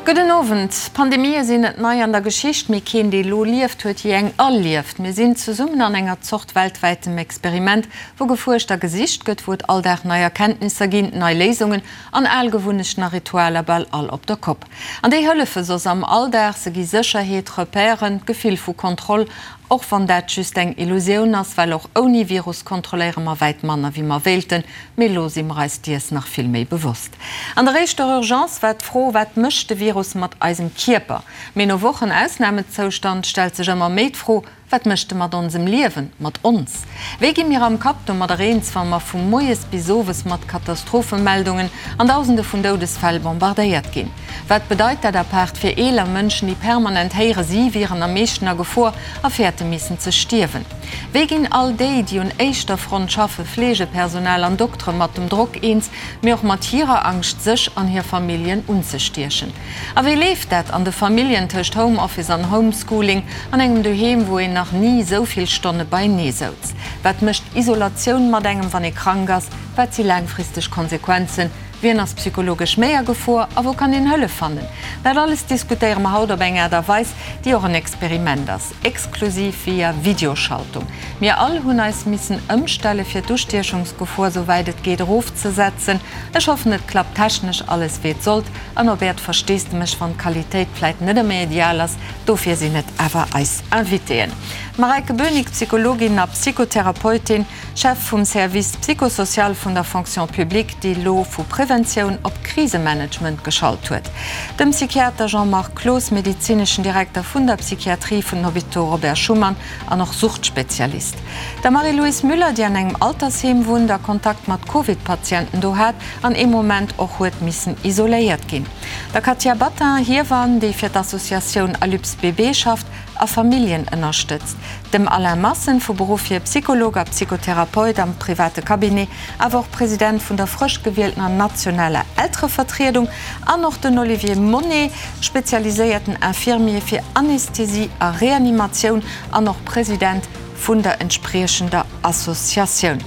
Gudden Owend. Pandemië sinn net nei an der Geschicht, mee keen, dee lo lieft, huet jee eng erlieft. Mir sinn zesummen an enger Zort weltwäitem Experiment, wou gefuerscht a gesicht gëtt, wou et all Dag nei Erkenntnisser ginn, nei Léisungen an al Gewunnechten a Ritualer bal all op der Kopp. An déi hëllefe soss am Alldag, se gi Sécherheet, Repèren, d'Gefill vu Kontroll Och wann dat just eng Illusioun ass, well och ouni Virus kontrolléiere mer wäit manner wéi mer wéilten, mee elo si mer eis diers nach vill méi bewosst. An der éischter Urgence war d'Fro, Wat mécht de Virus mat eisem Kierper? Mee no Wochen Ausnamezoustand stellt sech ëmmer méi d'Fro, Wat mécht e mat onsem Liewen, mat ons? Wéi gi mir am Kapp domadder eens, wa mer vu moies bis owes mat Katastrophemeldungen an Dausende vun Doudesfäll bombardéiert ginn? Wat bedeit dat apaart fir eeler Mënschen, déi permanent héiere si wieren am meeschten a Gefor a fäerte missen ze stierwen? Wéi ginn all déi, déi un éischter Front schaffe, Fleegepersonal an Doktere mat dem Drock eens, mee och mat hirer Angscht sech an hir Familljen unzestiechen? A wéi leeft dat an de Familljen tëscht Homeoffice an Homeschooling, an engem Doheem, wou een nach ni esou vill Stonne beienee souz? Wat mécht Isolatioun mat engem, wann ee krank ass? Wat si laangfristeg Konsequenzen? Wien ass psychologesch méi a Gefor a wou kann een Hëllef fannen? Dat alles diskutéiere mer haut op eng Aart a Weis, déi och en Experiment ass, exklusiv via Videoschaltung. Mir all hunn eis missen ëmstelle fir d'Ustiechungsgefor sou wäit et geet erofzesetzen. Ech hoffen et klappt technesch alles wéi et sollt an op äert Versteesdemech wann d'Qualitéit vläit net ëmmer ideal ass. Dofir sinn et awer eis Invitéen, d'Mareike Bönig, Psychologin a Psychotherapeutin, Chef vum Service psychosocial vun der Fonction publique, déi elo vu Preventioun op Krisemanagement geschalt huet. Dem Psychiater Jean-Marc Cloos, medezineschen Direkter vun der Psychiatrie vun den Hôpitaux Robert Schuman an och Suchtspezialist. Der Marie-Louise Müller, déi an engem Altersheem wunnt a Kontakt mat Covid-Patienten do hat an ee Moment och huet missen isoléiert ginn. Der Katia Battin, Hiewann, déi fir d'Associatioun Alyps BB schafft a Familljen ënnerstëtzt. Dem Alain Massen, vu Beruff hier Psycholog a Psychotherapeut am private Cabinet, awer och President vun der frësch gewieltener nationaler Elterevertriedung, an och den Olivier Monnet, spezialiséierten Infirmier fir Anästhesie a Reanimatioun an och President vun der entspriechender Associatioun.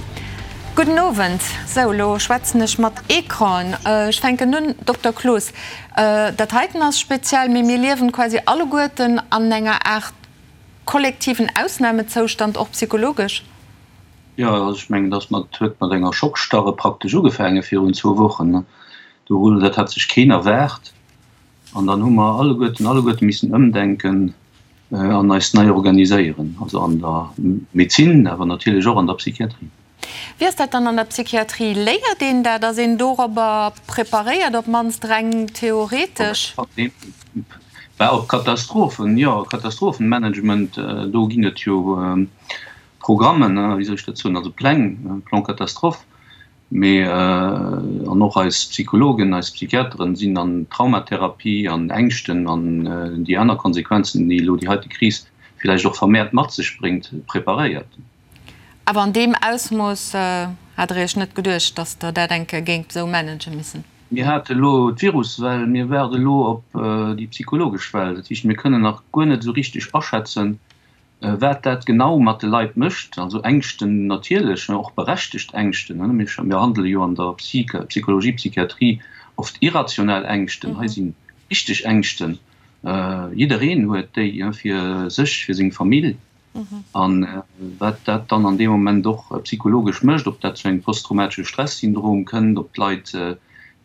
Gudden Owend. Sou, elo schwätzen ech mat Ecranen. Ech fänken un, Dokter Cloos, dat heiten ass speziell, mee mir liewen quasi alleguerten an enger Aart kollektiven Ausnamezoustand, och psychologesch? Jo, also ech mengen, dass mat huet mat enger Schockstarre praktesch ugefaange virun zwou Wochen. Do hunn, dat hat sech keen erwaart. An dann hu mer alleguerten, alleguerte missen ëmdenken an eis nei organiséieren, also an der Medezin, awer natierlech och an der Psychiatrie. Wéi ass dat dann an der Psychiatrie? Léiert een dat? Ass een dorobber preparéiert, op d'mannst reng theoretesch? Bah, op Katastrophen, jo. Katastrophenmanagement, do ginn et jo Programmen, wéi soll ech dat soen, also Pläng, Plan catastrophe. Mee, an och eis Psychologen, eis Psychiateren sinn an Traumatherapie, an Ängschten an déi aner Konsequenzen, déi elo déi heite Kris villäicht och vermehrt mat sech bréngt, preparéiert. Awer an deem Ausmooss hat Der Iech net geduecht, datt Der dat eng Kéier géingt esou manage missen? Mir hate elo d'Viruswell, mir waarde elo op déi psychologesch Well. Dat heescht, mir kënnen nach guer net esou richteg aschätzen, wat dat genau mat de Leit mécht. Also Ängschten natierlech, och berechtegt Ängschten. Mir handele jo an der Psychologie, Psychiatrie oft irrationell Ängschten. Hei si richteg Ängschten. Jiddereen huet déi fir sech, fir seng Famill. An wat dat dann an deem Moment och psychologesch mécht, ob dat zu engem posttraumatesche Stressyndrom kënnt, ob d'Leit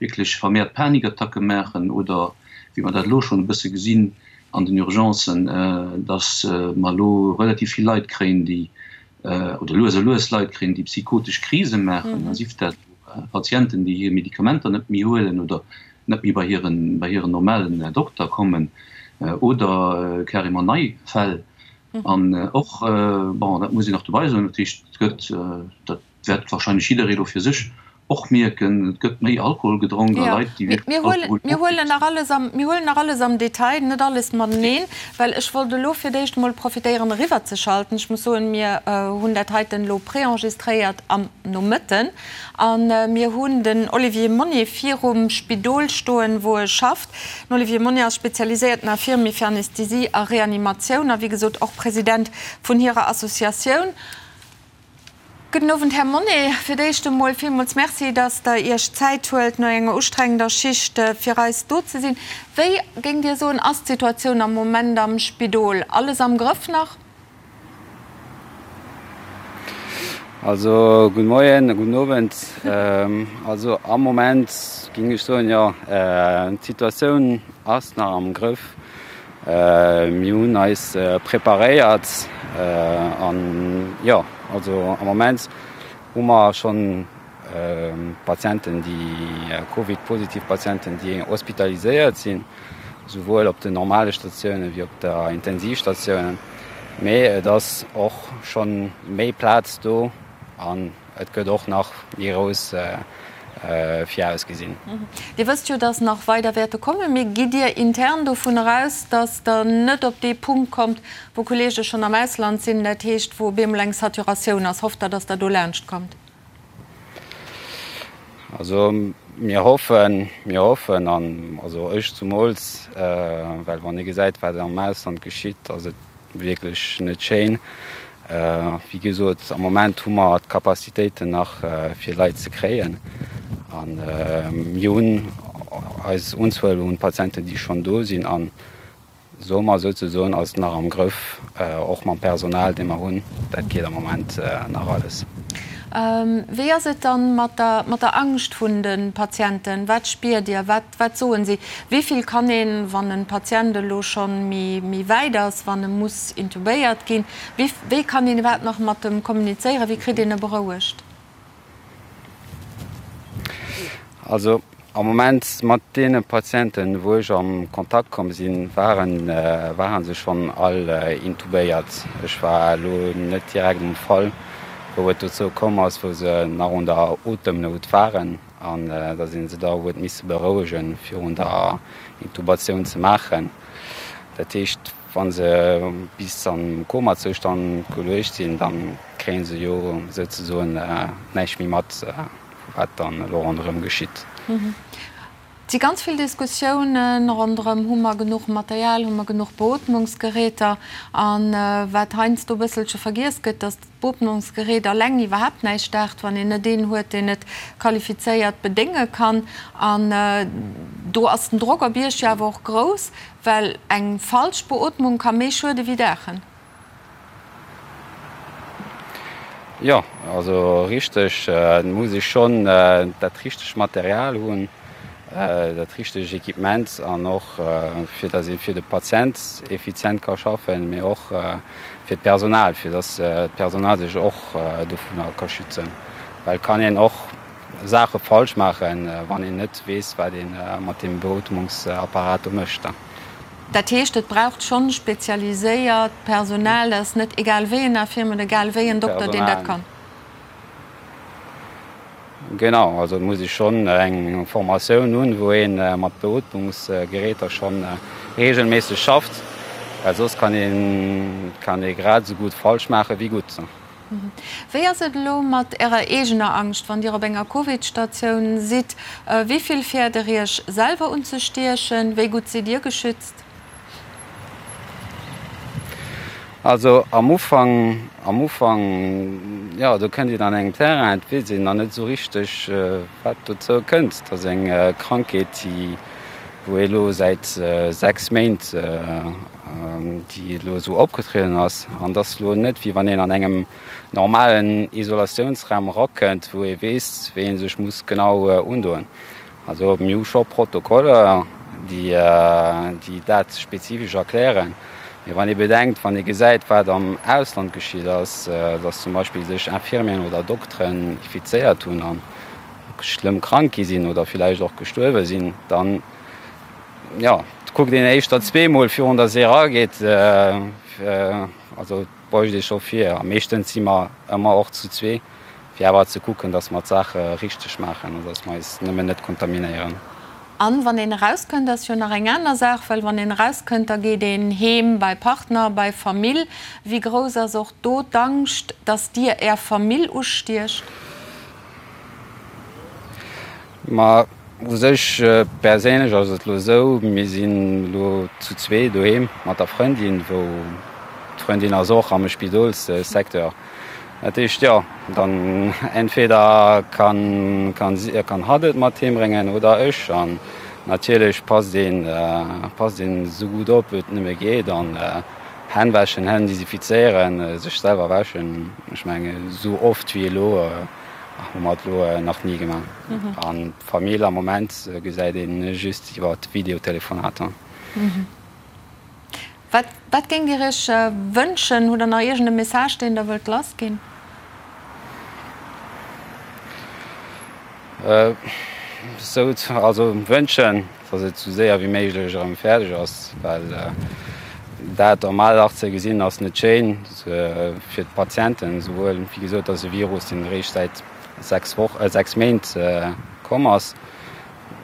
wierklech vermehrt Panikattacke maachen oder, wéi mer dat elo schonn e bësse gesinn an den Urgencen, dass mer elo relativ vill Leit kréien, déi, oder lues a lues Leit kréien, déi psychotesch Krise maachen, sief dat Patienten, déi hir Medikamenter net méi huelen oder net méi bei hiren, bei hiren normalen Dokter kommen oder carrément nei Fäll. An och, bon, dat muss een och dobei soen, dat heescht, et gëtt, dat wäert wahrscheinlech jidderee elo fir sech och mierken, et gëtt méi Alkohol gedronk a Leit, déi wierklech Alkohol. Mir huelen nach alles am, mir huelen nach alles am Detail, net alles mateneen, well ech wollt elo fir d'éischt emol profitéieren eriwwerzeschalten. Ech muss soen, mir hunn dat heiten elo préenregistréiert am Nomëtten a mir hunn den Olivier Monnier virum Spidol stoen, wou e schafft. Den Olivier Monnier ass spezialiséierten Infirmier fir Anästhesie a Reanimatioun a wéi gesot och President vun hirer Associatioun. Gudden Owend, Här Monné. Fir d'éischt emol villmools Merci, datt Der Iech d'Zäit huelt, no enger ustrengender Schicht fir eis do ze sinn. Wéi, géingt Dir soen, ass d'Situatioun am Moment am Spidol? Alles am Grëff nach? Also, gudde Moien, gudden Owend. Also am Moment géing ech soen, jo, d'Situatioun ass nach am Grëff. Mir hunn eis preparéiert an jo, also am Moment hu mer schonn Patienten, déi Covid-positiv Patienten, déi hospitaliséiert sinn, souwuel op den normale Statiounen wéi op der Intensivstatiounen. Mee et ass och schonn méi Plaz do an Et gëtt och nach méi grouss virausgesinn. Dir wësst jo, datt nach weider wäerte kommen. Mee gitt Dir intern dovun eraus, datt Der net op dee Punkt kommt, wou Kolleege schonn am Ausland sinn, dat heescht, wou op eemol eng Saturatioun ass? Hofft Der, datt Der do laanscht kommt? Also mir hoffen, mir hoffen, an also ech zumools, well wann ee gesäit, wat am Ausland geschitt, ass et Wierklech net schéin. Wéi gesot, am Moment hu mer d'Capacitéiten nach fir Leit ze kréien. A mir hunn eis Unzuel un Patienten, déi schonn do sinn. A soe mer souzesoen, ass et nach am Grëff, och mam Personal, dee mer hunn. Dat geet am Moment nach alles. Wéi ass et dann mat der Angscht vun de Patienten? Wat spiert Dir? Wat Wat soen si? Wéi vill kann een, wann e Patient elo schonn méi wäit ass, wann e muss intubéiert ginn, wéi wéi kann een iwwerhaapt nach mat em kommunizéieren? Wéi kritt een e berouegt? Also am Moment mat deene Patienten, wou ech am Kontakt komm sinn, waren ware se schonn all intubéiert. Ech war elo net direkt um Fall, wou et dozou komm ass, wou se nach un der Otemnout waren. An da sinn se da huet misse berouegen virun der Intubatioun ze maachen. Dat heescht, wa se bis am Komazoustand geluecht sinn, da kréie se jo souzesoen näischt méi mat, wat dann elo ronderëm geschitt. Et si ganz vill Diskussiounen ronderëm, Hu mer genuch Material, hu mer genuch Beootmungsgeräter? A wat heiansdo e bësselche vergiess gëtt, datt d'Beootmungsgerät alleng iwwerhaapt näischt daacht, wann een net een huet, deen et qualifizéiert bedénge kann. An do ass den Drock op Iech jo awer och grouss, well eng falsch Beootmung ka méi schuede wéi daachen. Jo, also richteg, et muss ee schonn dat richtegt Material hunn, dat richtegt Equipement an och fir datt ee fir de Patient effizient ka schaffen, mee och fir d'Personal, fir datt d'Personal sech och dovunner ka schützen, well et kann een och Saache falsch maachen, wann een net weess, wat ee mat deem Beootmungsapparat do mécht. Dat heescht, et braucht schonn spezialiséiert Personal, dat ass net egal wéi en Infirmier oder egal wéi en Dokter, deen dat kann. Genau, also et muss ee schonn eng Formatioun hunn, wou ee mat Beootmungsgeräter schonn reegelméisseg schafft, well soss kann ee kann ee grad esou gutt falsch maache wéi gutt. Wéi ass et elo mat Ärer eegener Angscht, wann Dir op enger Covid-Statioun sidd? Wéi vill fäert Der Iech selwer unzestiechen? Wéi gutt sidd Dir geschützt? Also am Ufank, am Ufank, jo, do kënnt een an engem Terrain, et weess een nach net esou richteg, wat dozou kënnt. Et ass eng Krankheet, déi, wou ee elo säit 6 Méint, déi elo esou opgetrieden ass. An et ass elo net, wéi wann een an engem normalen Isolatiounsraum erakënnt, wou ee weess, wéi ee sech muss genau undoen. Also mir hu scho Protokoller, déi, déi dat spezifesch erklären. Mee wann ee bedenkt, wann ee gesäit, wat am Ausland geschitt ass, dass zum Beispill sech Infirmieren oder Dokteren infizéiert hunn a schlëmm krank gi sinn oder villäicht och gestuerwe sinn, dann, jo, kuckt een éischter zweemol virun dass ee erageet. Also et beuecht ee scho vir. A meeschtens si mer ëmmer och zu zwee, fir awer ze kucken, dass mer d'Saache richteg maachen an dass mer eis nëmmen net kontaminéieren. An wann een erauskënnt, ass jo nach eng aner Saach, well wann een erauskënnt, da geet een heem bei Partner, bei Famill. Wéi grouss ass och do d'Angscht, dass Dir Är Famill ustiecht? Ma u sech perséinlech ass et elo esou, mir sinn elo zu zwee doheem mat der Frëndin, wou d'Frëndin ass och am Spidolssecteur. Dat heescht, jo, dann entweder kann, kann si, kann hatt et mat heem bréngen oder ech. An natierlech passt een, passt een esou gutt op, wéi et nëmme geet. An Hänn wäschen, Hänn desinfizéieren, sech selwer wäschen. Ech mengen, esou oft wéi elo hu mer et elo nach ni gemaach. An d'Famill am Moment gesäit ee just iwwer Videotelefonater. Wat, wat géingt Dir Iech wënschen? Hutt Der nach iergend e Message, deen Der wëllt lassginn? Sou, also wënschen, datt et sou séier wéi méiglech erëm fäerdeg ass, well dat am Alldag ze gesinn ass net schéin fir d'Patienten, souwuel, wéi gesot, ass e Virus, deen eréischt säit 6 Woch, 6 Méint komm ass.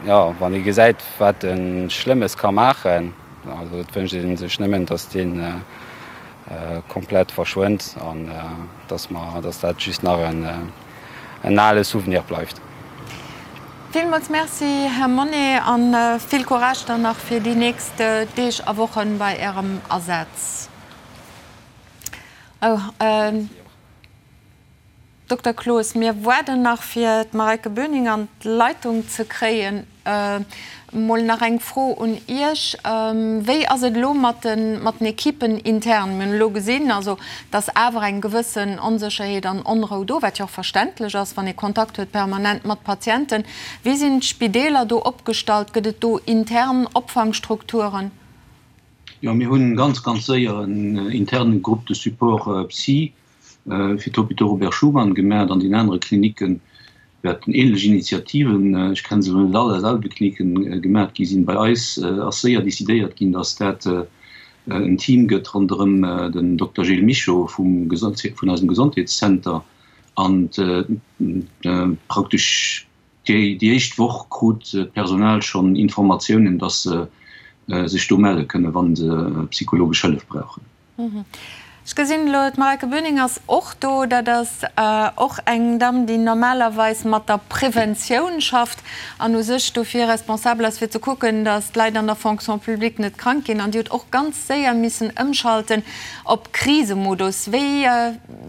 Jo, wann ee gesäit, wat e Schlëmmes ka maachen, also et wënscht ee sech nëmmen, datt dee komplett verschwënnt an datt mer, datt dat just nach en ale Souvenir bleift. Villmools Merci, Här Monnet, a vill Courage dann nach fir déi nächst Deeg a Wochen bei Ärem Asaz. Dokter Cloos, mir waarden nach fir d'Mareike Böning an d'Leitung ze kréien. Mol nach eng Fro un Iech, Wéi ass et elo mat den mat den Equipen intern? Mir hunn elo gesinn, also dass awer eng gewëssen Onsécherheet an Onrou do, wat jo och verständlech ass, wann ee Kontakt huet permanent mat Patienten. Wéi sinn d'Spideeler do opgestallt? Gëtt et do intern Opfangstrukturen? Jo, mir hunn ganz, ganz séier en interne Groupe de support psy fir d'Hôpitaux Robert Schuman gemaacht. An den anere Klinicke wäerten ähnlech Initiativen, ech kenne se elo net all aus all de Klinicken, gemaacht gi sinn. Bei eis ass séier decidéiert ginn, datt dat en Team gëtt ronderëm den Dokter Gilles Michaux vum vun eisem Gesondheetszenter an praktesch déi éischt Woch krut d'Personal schonn Informatiounen, datt se sech do melle kënnen, wa se psychologesch Hëllef brauchen. Ech gesinn elo, d'Mareike Böning ass och do. Dat ass och eng Damm, déi normalerweis mat der Preventioun schafft an u sech dofir responsabel ass, fir ze kucken, datt d'Leit an der Fonction publique net krank ginn. An déi huet och ganz séier missen ëmschalten op Krisemodus. Wéi,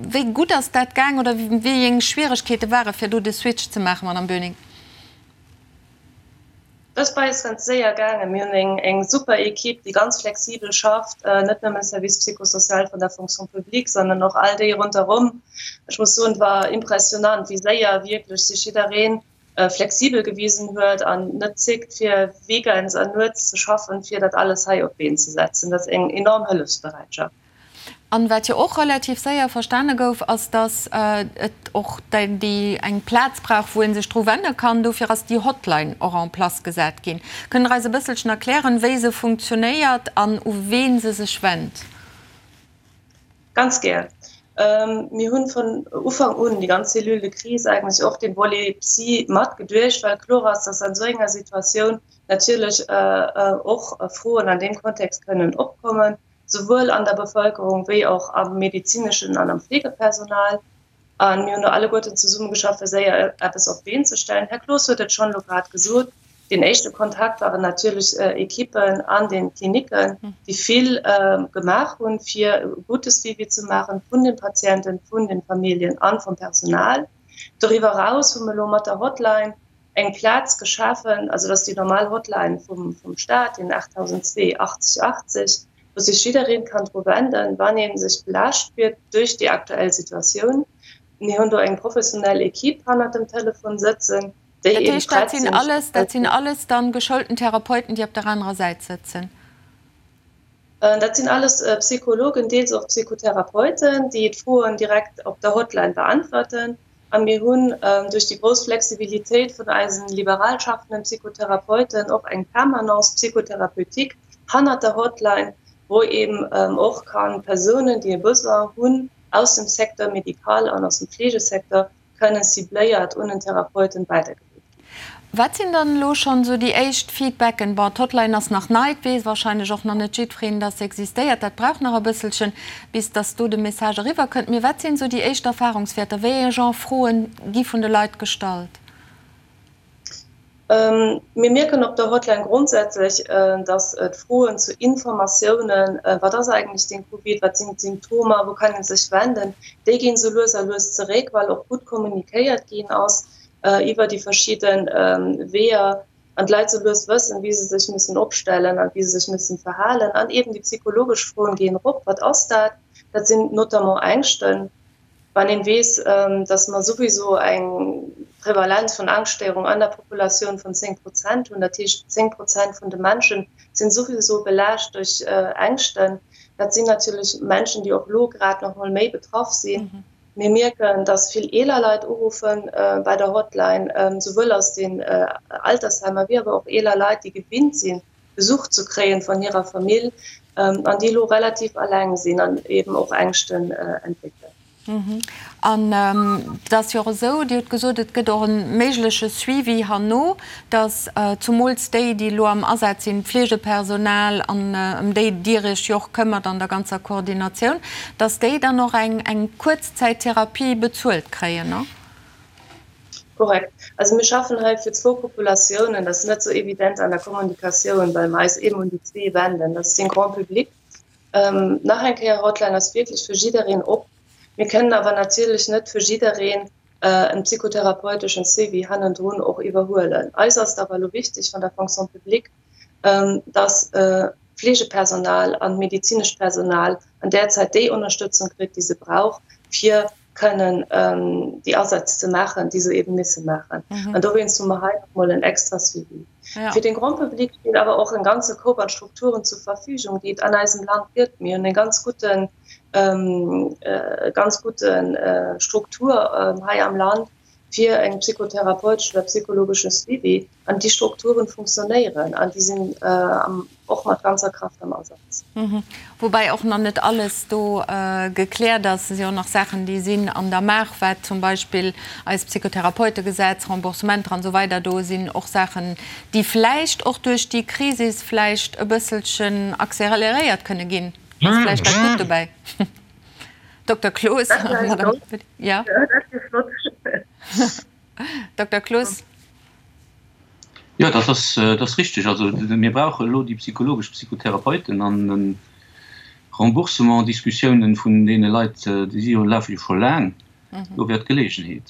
wéi gutt ass dat gaang oder wéi eng Schwieregkeete ware fir do de Switch ze maachen, Madame Böning? Dat ass bei eis ganz séier gaangen. Mir hunn eng super Equipe, déi ganz flexibel schafft, net nëmme Service psychosocial vun der Fonction publique, sondern och all déi ronderëm. Ech muss soen, et war impressionant, wéi séier wierklech sech jidderee flexibel gewisen huet an net zéckt, fir weekends an nuets ze schaffen, fir dat alles hei op d'Been ze setzen. Dat ass eng enorm Hëllefsbereitschaft. An wat jo och relativ séier verstane gouf, ass, dass et och déi eng Plaz brauch, wou ee sech dru wende kann. Dofir ass déi Hotline och en place gesat ginn. Kënnt Der eis e bësselchen erklären, wéi se funktionéiert an u ween se sech wennt? Ganz gär. Mir hunn vun Ufank un, déi ganz Cellule de crise eigentlech och dee Volet Psy matgeduecht, well kloer ass, dass an esou enger Situatioun natierlech och Froen an deem Kontext kënnen opkommen. souwuel an der Bevëlkerung wéi och am medezineschen an am Fleegepersonal. A mir hunn do alleguerten zesummegeschafft, fir séier eppes op d'Been ze stellen. Här Cloos huet et schonn elo grad gesot, Deen éischte Kontakt waren natierlech Ekippen an den Klinicken, déi vill gemaach hunn, fir e gute Suivi ze maachen vun de Patienten, vun de Familljen a vum Personal. Doriwwer eraus hu mir elo mat der Hotline eng Plaz geschafen, also dat ass déi normal Hotline vum vum Staat, den 8002 80 80, wou sech jiddereen kann dru wenden, wann ee sech belaascht spiert duerch déi aktuell Situatioun. Mir hunn do eng professionell Equipe hannert dem Telefon sëtzen, déi Dat heescht, dat sinn alles, dat sinn alles dann geschoulten Therapeuten, déi op der anerer Säit sëtzen? Dat sinn alles Psychologen, deels och Psychotherapeuten, déi d'Froen direkt op der Hotline beäntwerten. A mir hunn duerch déi grouss Flexibilitéit vun eisen liberal schaffenden Psychotherapeuten och eng Permanence psychothérapeutique hannert der Hotline, wou eben och ka Persounen, déi e Besoin hunn, aus dem Secteur médical an aus dem Fleegesecteur, kënnen cibléiert un en Therapeuten weidergeleet ginn. Wat sinn dann elo schonn esou déi éischt Feedbacken? Bon, d'Hotline ass nach nei, et weess wahrscheinlech och nach net jiddwereen, dass se existéiert. Dat brauch nach e bësselchen, bis dass do de Message eriwwer kënnt. Mee wat sinn esou déi éischt Erfahrungswäerter? Wéi ee Genre Froen gi vun de Leit gestallt? Mir mierken op der Hotline grondsätzlech, dass d'Froen zu Informatiounen, wat ass eigentlech den Covid, wat sinn d'Symptomer, wou kann ee sech wenden, déi ginn esou lues a lues zeréck, well och gutt kommunikéiert ginn ass iwwer déi verschidde Weeër an d'Leit esou lues wëssen, wéi se sech müssen opstellen an wéi se sech müssen verhalen. An eeben déi psychologesch Froen ginn erop, Wat ass dat? Dat sinn notamment Ängschten. Wann een weess, dass mer souwiso eng Prevalenz vun Angschtstéierung an der Populatioun vun 10 Prozent hunn, dat heescht 10 Prozent vun de Menschen sinn souwiso belaascht duerch Ängschten, dat sinn natierlech Menschen, déi och elo grad nach mol méi betraff sinn. Mir mierken, dass vill eeler Leit uruffen bei der Hotline, souwuel aus den Altersheimer wéi awer och eeler Leit, déi gewinnt sinn, Besuch ze kréien vun hirer Famill an déi elo relativ alleng sinn an eben och Ängschten entwéckelen. An et ass jo och esou, Dir hutt gesot, et gëtt och e méigleche Suivi herno, datt zumools déi, déi elo am Asaz sinn, d'Fleegepersonal an ëm déi Dir Iech jo och këmmert an der ganzer Koordinatioun, datt déi dann och eng Kuerzzäittherapie bezuelt kréien, ne? Korrekt. Also mir schaffen hei fir zwou Populatiounen. Dat ass net esou evident an der Kommunikatioun, well mer eis eben un déi zwee wenden. Dat ass den Grand public. Nach eng Kéier, Hotline ass wierklech fir jiddereen op. Mir kënnen awer natierlech net fir jiddereen en psychotherapeuteschen Suivi hannendrun och iwwerhuelen. Eis ass et awer elo wichteg vun der Fonction publique, dass d'Fleegepersonal an d'medezinescht Personal an där Zäit déi Ënnerstëtzung kritt, déi se brauch, fir kënnen déi Asätz ze maachen, déi se eben misse maachen. An dowéinst hu mer hei nach emol en extra Suivi. Ja. Fir den Grand public steet awer och en ganze Koup an Strukturen zur Verfügung, déi et an eisem Land gëtt. Mir hunn eng ganz guten, ganz gute Struktur hei am Land fir eng psychotherapeutesch oder psychologesche Suivi. An déi Strukturen funktionéieren an déi sinn och mat ganzer Kraaft am Asaz. Woubäi och nach net alles do gekläert ass. Et si och nach Saachen, déi sinn an der Maach, wat zum Beispill eist Psychotherapeutegesetz, Remboursementer an esou weider, do sinn och Saachen, déi vläicht och duerch déi Krisis vläicht e bësselchen accéléréiert kënne ginn. Ass vläicht dat Gutt dobäi. Dokter Cloos. Dat wier flott. Dokter Cloos. Jo, dat ass, dat ass richtig. Also mir brauche elo déi psychologesch Psychotherapeuten an de Remboursement-Diskussiounen vun deene Leit, déi si jo, lafe jo scho laang. Do wär d'Gelegenheet.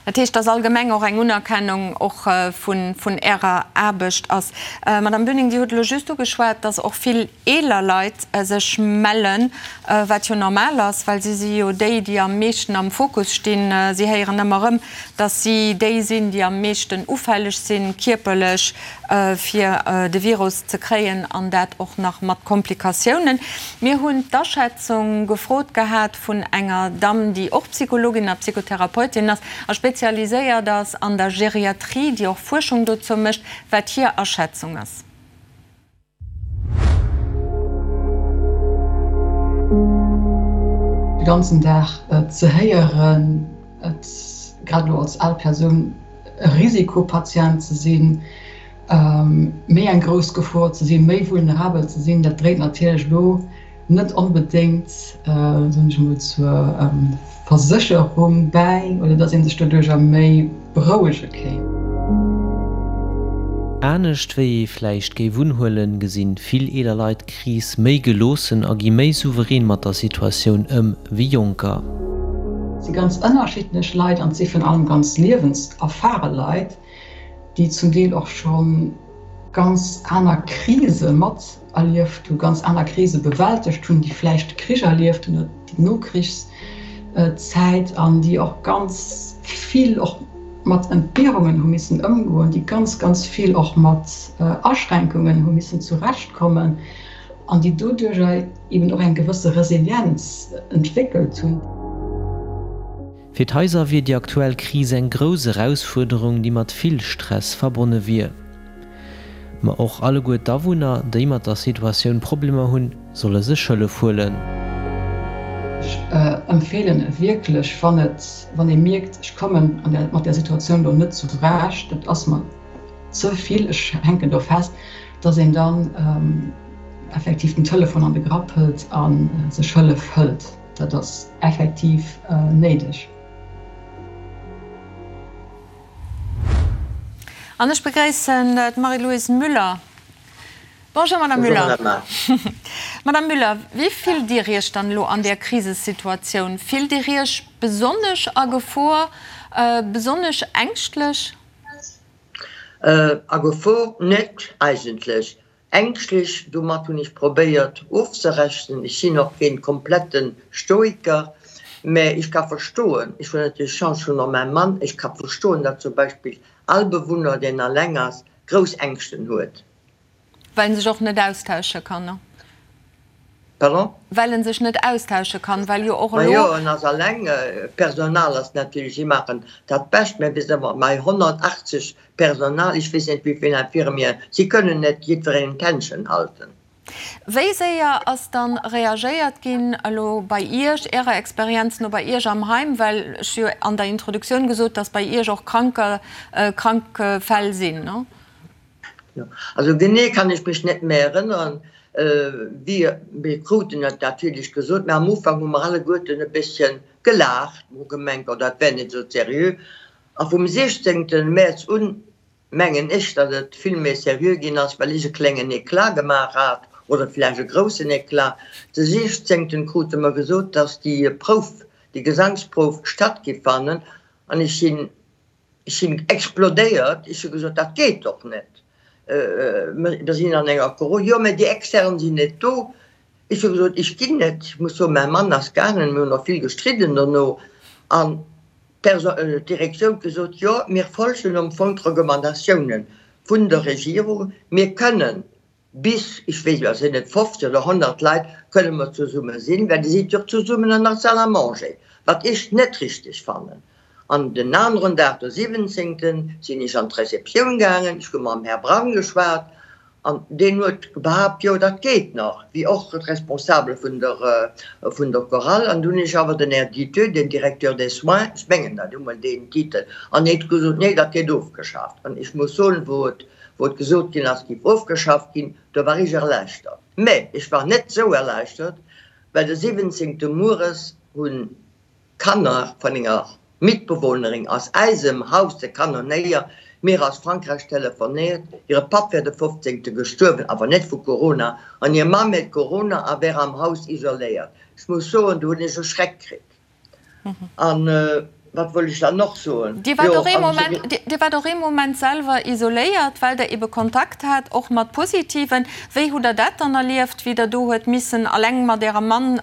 Dat heescht, dass allgemeng och eng Unerkennung och vun Ärer Aarbecht ass. Madame Bünning, Dir hutt elo just ugeschwat, dass och vill eeler Leit sech mellen, wat jo normal ass, well si si jo déi, déi am meeschten am Fokus stinn. Si héieren ëmmer erëm, dass si déi sinn, déi am meeschten ufälleg sinn, kierperlech, fir de Virus ze kréien, an dat och nach mat Komplikatiounen. Mir hunn d'Aschätzung gefrot gehat vun enger Damm, déi och Psychologin a Psychotherapeutin ass a spezialiséiert ass an der Geriatrie, déi och Fuerschung dozou mécht, wat hir Aschätzung ass. De ganzen Dag ze héieren, et grad elo als al Persoun e Risikopatient ze sinn, méi eng grouss Gefor ze sinn, méi vulnerabel ze sinn, dat dréit natierlech elo net onbedéngt, soen ech emol, zur Versécherung bäi oder datt ee sech doduercher méi berouege kéint. Anescht wéi ee vläicht géif unhuelen, gesinn vill eeler Leit d'Kris méi geloossen a gi méi souverän mat der Situatioun ëm wéi Jonker. Et si ganz ënnerschiddlech Leit an et si virun allem ganz liewenserfare Leit, déi zum Deel och scho ganz aner Krise mat erlieft hu, ganz aner Krise bewältegt hunn, déi vläicht de Krich erlieft hunn oder déi Nokrichszäit an déi och ganz vill och mat Entbehrungen hu missen ëmgoen, déi ganz, ganz vill och mat Aschränkungen hu missen zurechtkommen an déi doduerjer eben och eng gewësse Resilienz entwéckelt hunn. Fir d'Haiser wier déi aktuell Kris eng grouss Erausfuerderung, déi mat vill Stress verbonne wier. Ma och alleguer d'Awunner, déi mat der Situatioun Problemer hunn, solle sech Hëllef huelen. Ech empfeelen wierklech, wann et, wann ee mierkt, ech kommen an der, mat där Situatioun do net zurecht, et ass mer ze vill, ech hänken do fest, dass een dann effektiv den Telefon an de Grapp hëlt a sech Hëllef hëlt. Dat ass effektiv néideg. An ech begréissen d'Marie-Louise Müller. Bonjour Madame Müller. Madame Müller, wéi fillt Dir Iech dann elo an där Krisesituatioun? Fillt Dir Iech besonnesch a Gefor, besonnesch ängschtlech? A Gefor net eigentlech. Ängschtlech, domat hunn ech probéiert ofzerechnen. Ech sinn och keen kompletten Stoiker, mä ech ka verstoen, ech hunn natierlech Chance, ech hunn och mäi Mann, ech ka verstoen, datt zum Beispill all Bewunner, deen alleng ass, grouss Ängschten huet. Well en sech och net austausche kann, ne? Pardon? Well en sech net austausche kann, well jo och elo. Majo, en ass alleng. D'Personal ass natierlech, si maachen dat Bescht, mä bis ëmmer mei 180 Personal, ech weess net wéi vill Infirmieren, si kënnen net jiddwerengem d'Händchen halten. Wéi séier ass dann reagéiert ginn elo bei Iech, Ärer Experienz no bei Iech am Heim, well ech hu jo an der Introduktioun gesot, dass bei Iech och Kranker, krank Fäll sinn, ne? Jo, also genee kann ech mech net méi erënneren. Wéi, mir kruten et natierlech gesot, mä am Ufank hu mer alleguerten e bësschen gelaacht, mer hu gemengt, oh dat wär net esou seriö. A vum 16. Mäerz un mengen ech, datt et vill méi seriö ginn ass, well ech e klengen Eclat gemaach hat, oder vläicht e groussen Eclat. De 16. krute mer gesot, datt déi Prouf, déi Gesangsprouf statt giff fannen, an ech sinn, ech sinn explodéiert. Ech hu gesot, dat geet doch net, mer sinn an enger Coro, jo, mä déi Extern sinn net do. Ech hu gesot, ech ginn net. Ech muss soen, mäi Mann ass gaangen, mir hunn och vill gestridden dono, an D'Direktioun huet gesot, Jo, mir folgen am Fong d'Recommandatiounen vun der Regierung. Mir kënnen bis, ech weess elo sinn et 50 oder 100 Leit, kënne mer zesumme sinn, well Dir sidd jo och zesummen an der Salle à manger, wat ech net richteg fannen. An den aneren Dag, de 17., sinn ech an d'Receptioun gaangen, ech hu mam Här Braun geschwat An deen huet behaapt, jo, dat geet nach, wéi och d'Responsabel vun der, vun der Chorale. An du hunn ech awer den Här Diteux, den Directeur des soins, ech mengen dat hu mol deen Titel, an deen huet gesot, nee, dat gétt ofgeschaaft. An ech muss soen, wou et, wou et gesot ginn ass, et géif ofgeschafft ginn, do war ech erleichtert. Mä ech war net esou erleichtert, well de 17. mueres hunn Kanner vun enger Mitbewohnerin aus eisem Haus de Kanonéier mir aus Frankräich telefonéiert, hire Papp wär de 15. Gestuerwen, awer net vu Corona, an hir Mamm hätt Corona a wär am Haus isoléiert. Ech muss soen, do hunn ech e Schreck kritt. An wat wollt ech dann och soen? Dir waart och ee Moment, Dir waart och ee Moment selwer isoléiert, well Der ebe Kontakt hat, och mat Positiven. Wéi hutt Der dat dann erlieft, wéi Der do huet missen alleng mat Ärem Mann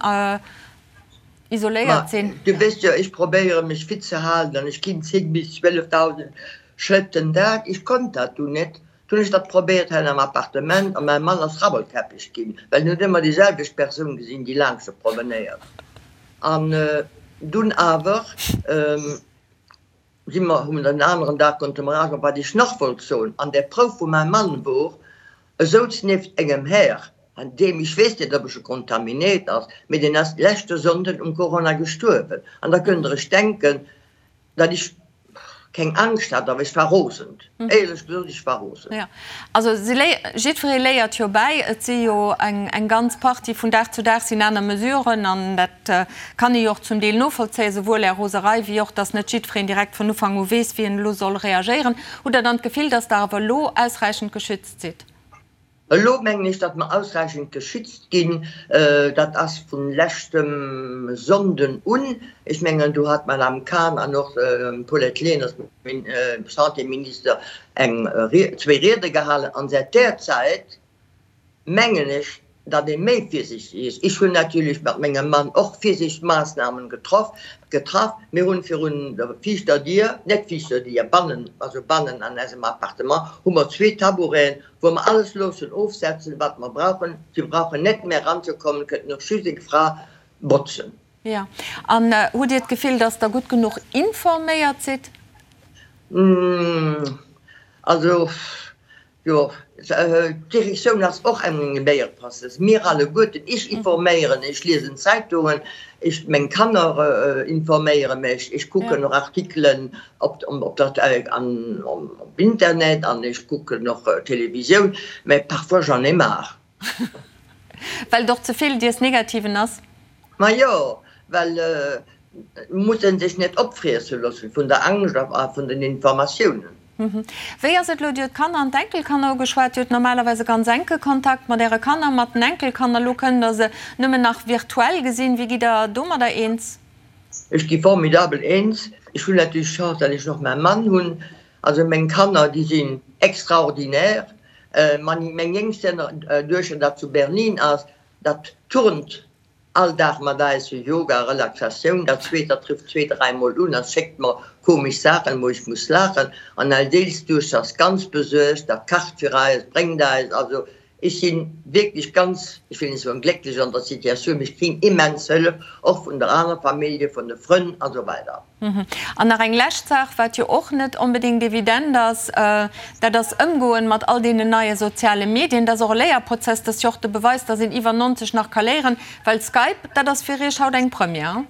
isoléiert sinn. Ma du weess jo, ech probéiere mech fit ze halen an ech ginn 10 bis 12.000 Schrëtt den Dag. Ech konnt dat dunn net. Dunn hunn ech dat probéiert hei am Appartement a mäi Mann ass rabbelkäppeg ginn, well en huet ëmmer déi selwecht Persoun gesinn, déi laanscht e promenéiert. An dunn awer. Si mer hunn den aneren Dag konnte mer awer, wat ech nach wollt soen, an där Prouf wou mäi Mann wor, e souz nieft engem Här, an deem, ech weess net ob e scho kontaminéiert ass, mee deen ass leschte Sonnden um Corona gestuerwen. An da kënnt der iech denken, datt ech keng Angscht hat, awer ech war rosend, éierlech gesot, ech war rosend. Jo, also si léi, jiddweree léiert jo bäi. Et si jo eng, eng ganz Partie, vun Dag zu Dag sinn aner Mesuren an dat kann ee jo och zum Deel novollzéien, souwuel Är Roserei wéi och, dass net jiddwereen direkt vun Ufank u weess, wéi en elo soll reagéieren. Hutt Der dann d'Gefill, dass Der awer elo ausräichend geschützt sidd? Elo mengen ech, datt mer ausräichend geschützt ginn. Dat ass vu leschtem Sonnden un. Ech mengen, do hat d'Madame Cahn an och d'Paulette Lenert, Santéminister, eng, zwéi Riede gehalen. An säit där Zäit mengen ech, datt ee méi virsiichteg ass. Ech hunn natierlech mat mengem Mann och Virsiichtsmaassnamen getroff, getraff. Mir hunn virun der viischter Dier, net viischter Dier, bannen, also bannen an eisem Appartement hu mer zwee Taboureten, wou mer alles loossen ofsetzen, wat mer brauchen. Si brauchen net méi eranzekommen, kënnten och just eng Fra botzen. Jo. An hutt Dir d'Gefill, datt Der gutt genuch informéiert sidd? Also, Jo, d'Direktioun ass och eng Léierprozess. Mir alleguerten, ech informéieren, ech liesen Zeitungen, ech, meng Kanner informéiere mech, ech kucken och Artikelen op op der an op Internet an ech kucken och Televisioun, mä parfois j'en ai marre. Well et och ze vill dies Negativen ass? Majo, well et muss ee sech net opfriesse loossen vun der Angscht a vun den Informatiounen. Wéi ass et elo? Dir hutt d'Kanner an d'Enkelkanner ugeschwat. Dir hutt normalerweis e ganz enke Kontakt mat Äre Kanner, mat den Enkelkanner. Elo kënnt Der se nëmmen nach virtuell gesinn. Wéi gitt Der domadder eens? Ech gi formidabel eens. Ech hunn natierlech d'Chance, datt ech och mäi Mann hunn. Also meng Kanner, déi sinn extraordinaire. Meng jéngst Duechter, dat zu Berlin ass, dat turnt All Dag mat eis fir Yoga, Relaxatioun. Dat zweet, dat trifft zwee, dräimol un a schéckt mer komesch Saachen, wou ech muss laachen. An eis eelst Duechter ass ganz besuergt, dat kacht fir eis, bréngt eis. Also ech si wierklech ganz, ech wëll net soen glécklech an der Situatioun, mee ech kréien immens Hëllef, och vun der aner Famillje, vun de Frënn a sou weider. An nach eng lescht Saach, wat jo och net onbedéngt evident ass, dat ass Ëmgoen mat all deenen neie soziale Medien. Dat ass och e Léierprozess. Dat ass jo och de Beweis, dass een iwwer 90 nach ka léieren. Well Skype, dat ass fir Iech haut eng Première?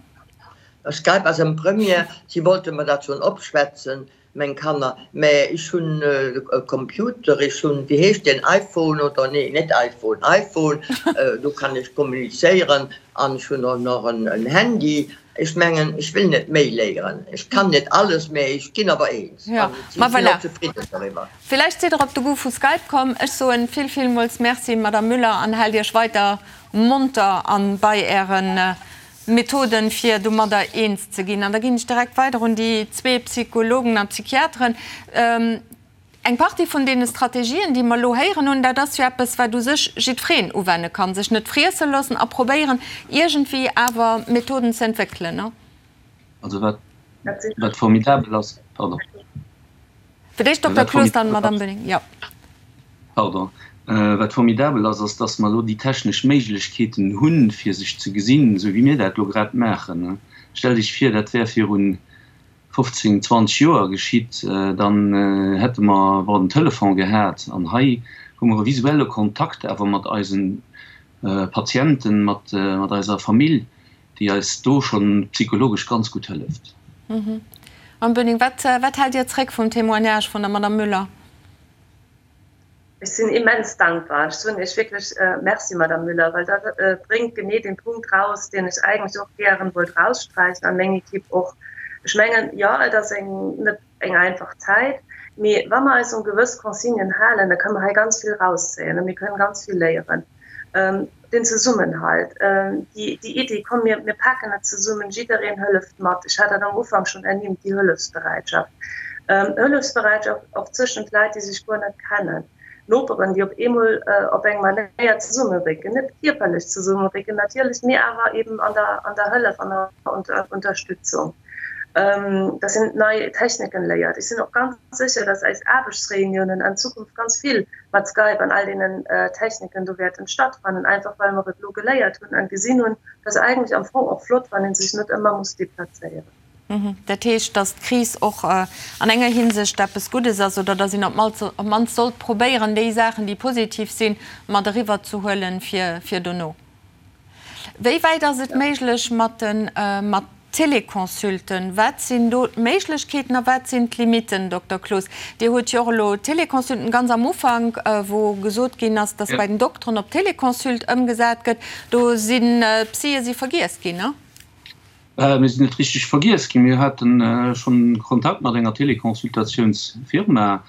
Skype ass eng Première. Si wollte mer dat schonn opschwätzen. Meng Kanner, mä ech hunn e Computer, ech hunn, wéi heescht deen, iPhone oder, nee, net iPhone, iPhone, do kann ech kommunizéieren an ech hunn och nach en Handy. Ech mengen, ech wëll net méi léieren, ech kann net alles, mä ech ginn awer eens an ech sinn och zefridden doriwwer. Villäicht sidd der op de Goût vu Skype komm. Ech soen vill, villmools Merci, Madame Müller, an haalt Iech weider monter an bei Ären Methoden, fir domadder eens ze ginn. An da ginn ech direkt weider un déi zwee Psychologen a Psychiateren. Eng Partie vun deene Strategien, déi mer elo héieren hunn, dat ass jo eppes, wat u sech jiddwereen uwenne kann, sech net friesse loossen a probéieren, iergendwéi awer Methoden ze entwéckelen, ne? Also wat, wat formidabel ass, pardon. Fir d'éischt Dokter Cloos, dann d'Madame Böning, jo. Pardon. Wat formidabel ass, ass, dass mer elo déi technesch Méiglechkeeten hunn, fir sech ze gesinn, esou wéi mir dat elo grad maachen. Stellt Iech vir, dat wär viru 15, 20 Joer geschitt, dann hätte mer, bon, den Telefon gehat. An hei hu mer e visuelle Kontakt awer mat eise Patienten, mat eiser Famill, déi eis do schonn psychologesch ganz gutt hëlleft. Mme Böning, wat haalt Dir zréck vum Témoignage vun der Madame Müller? Ech sinn immens dankbar. Ech soen Iech wierklech Merci, Madame Müller, well dat bréngt genee dee Punkt raus, deen ech eigentlech och gären wollt raussträichen an meng Equipe och. Ech mengen, jo, et ass eng net eng einfach Zäit, mee wa mer eis un gewëss Consignen halen, da kënne mer hei ganz vill rauszéien a mir kënnen ganz vill léieren. Den Zesummenhalt, déi Iddi, komm mir mir paken et zesummen, jiddereen hëlleft mat, ech hat dat am Ufank schonn ernimmt, déi Hëllefsbereitschaft, Hëllefsbereitschaft och zwëschent Leit, déi sech guer net kennen, Noperen, déi op eemol op eng Manéier zesummerécken, net kierperlech zesummerécken natierlech, mee awer eben an der an der Hëllef an der Unterstützung, dass een nei Techniken léiert. Ech sinn och ganz sécher, dass eis Aarbechtsreuniounen an Zukunft ganz vill mat Skype an all deenen Techniken do wäerten stattfannen, einfach well mer et elo geléiert hunn an gesinn hunn, dass eigentlech am Fong och flott, wann ee sech net ëmmer muss deplazéieren. Dat heescht, dass d'Kris och an enger Hinsicht eppes Guddes ass oder dass een op d'mannst sollt probéieren, déi Saachen, déi positiv sinn, mat eriwwerzehuelen fir dono. Wéi wäit ass et méiglech mat de mat Téléconsulten? Wat sinn do d'Méiglechkeeten a wat sinn d'Limitten, Dokter Cloos? Dir hutt jo och elo Téléconsulten ganz am Ufank, wou gesot ginn ass, datt bei den Dokteren op Téléconsult ëmgesat gëtt, do sinn d'Psye si vergiess ginn, ne? Mir sinn net richteg vergiess ginn. Mir hate schonn Kontakt mat enger Téléconsultatiounsfirma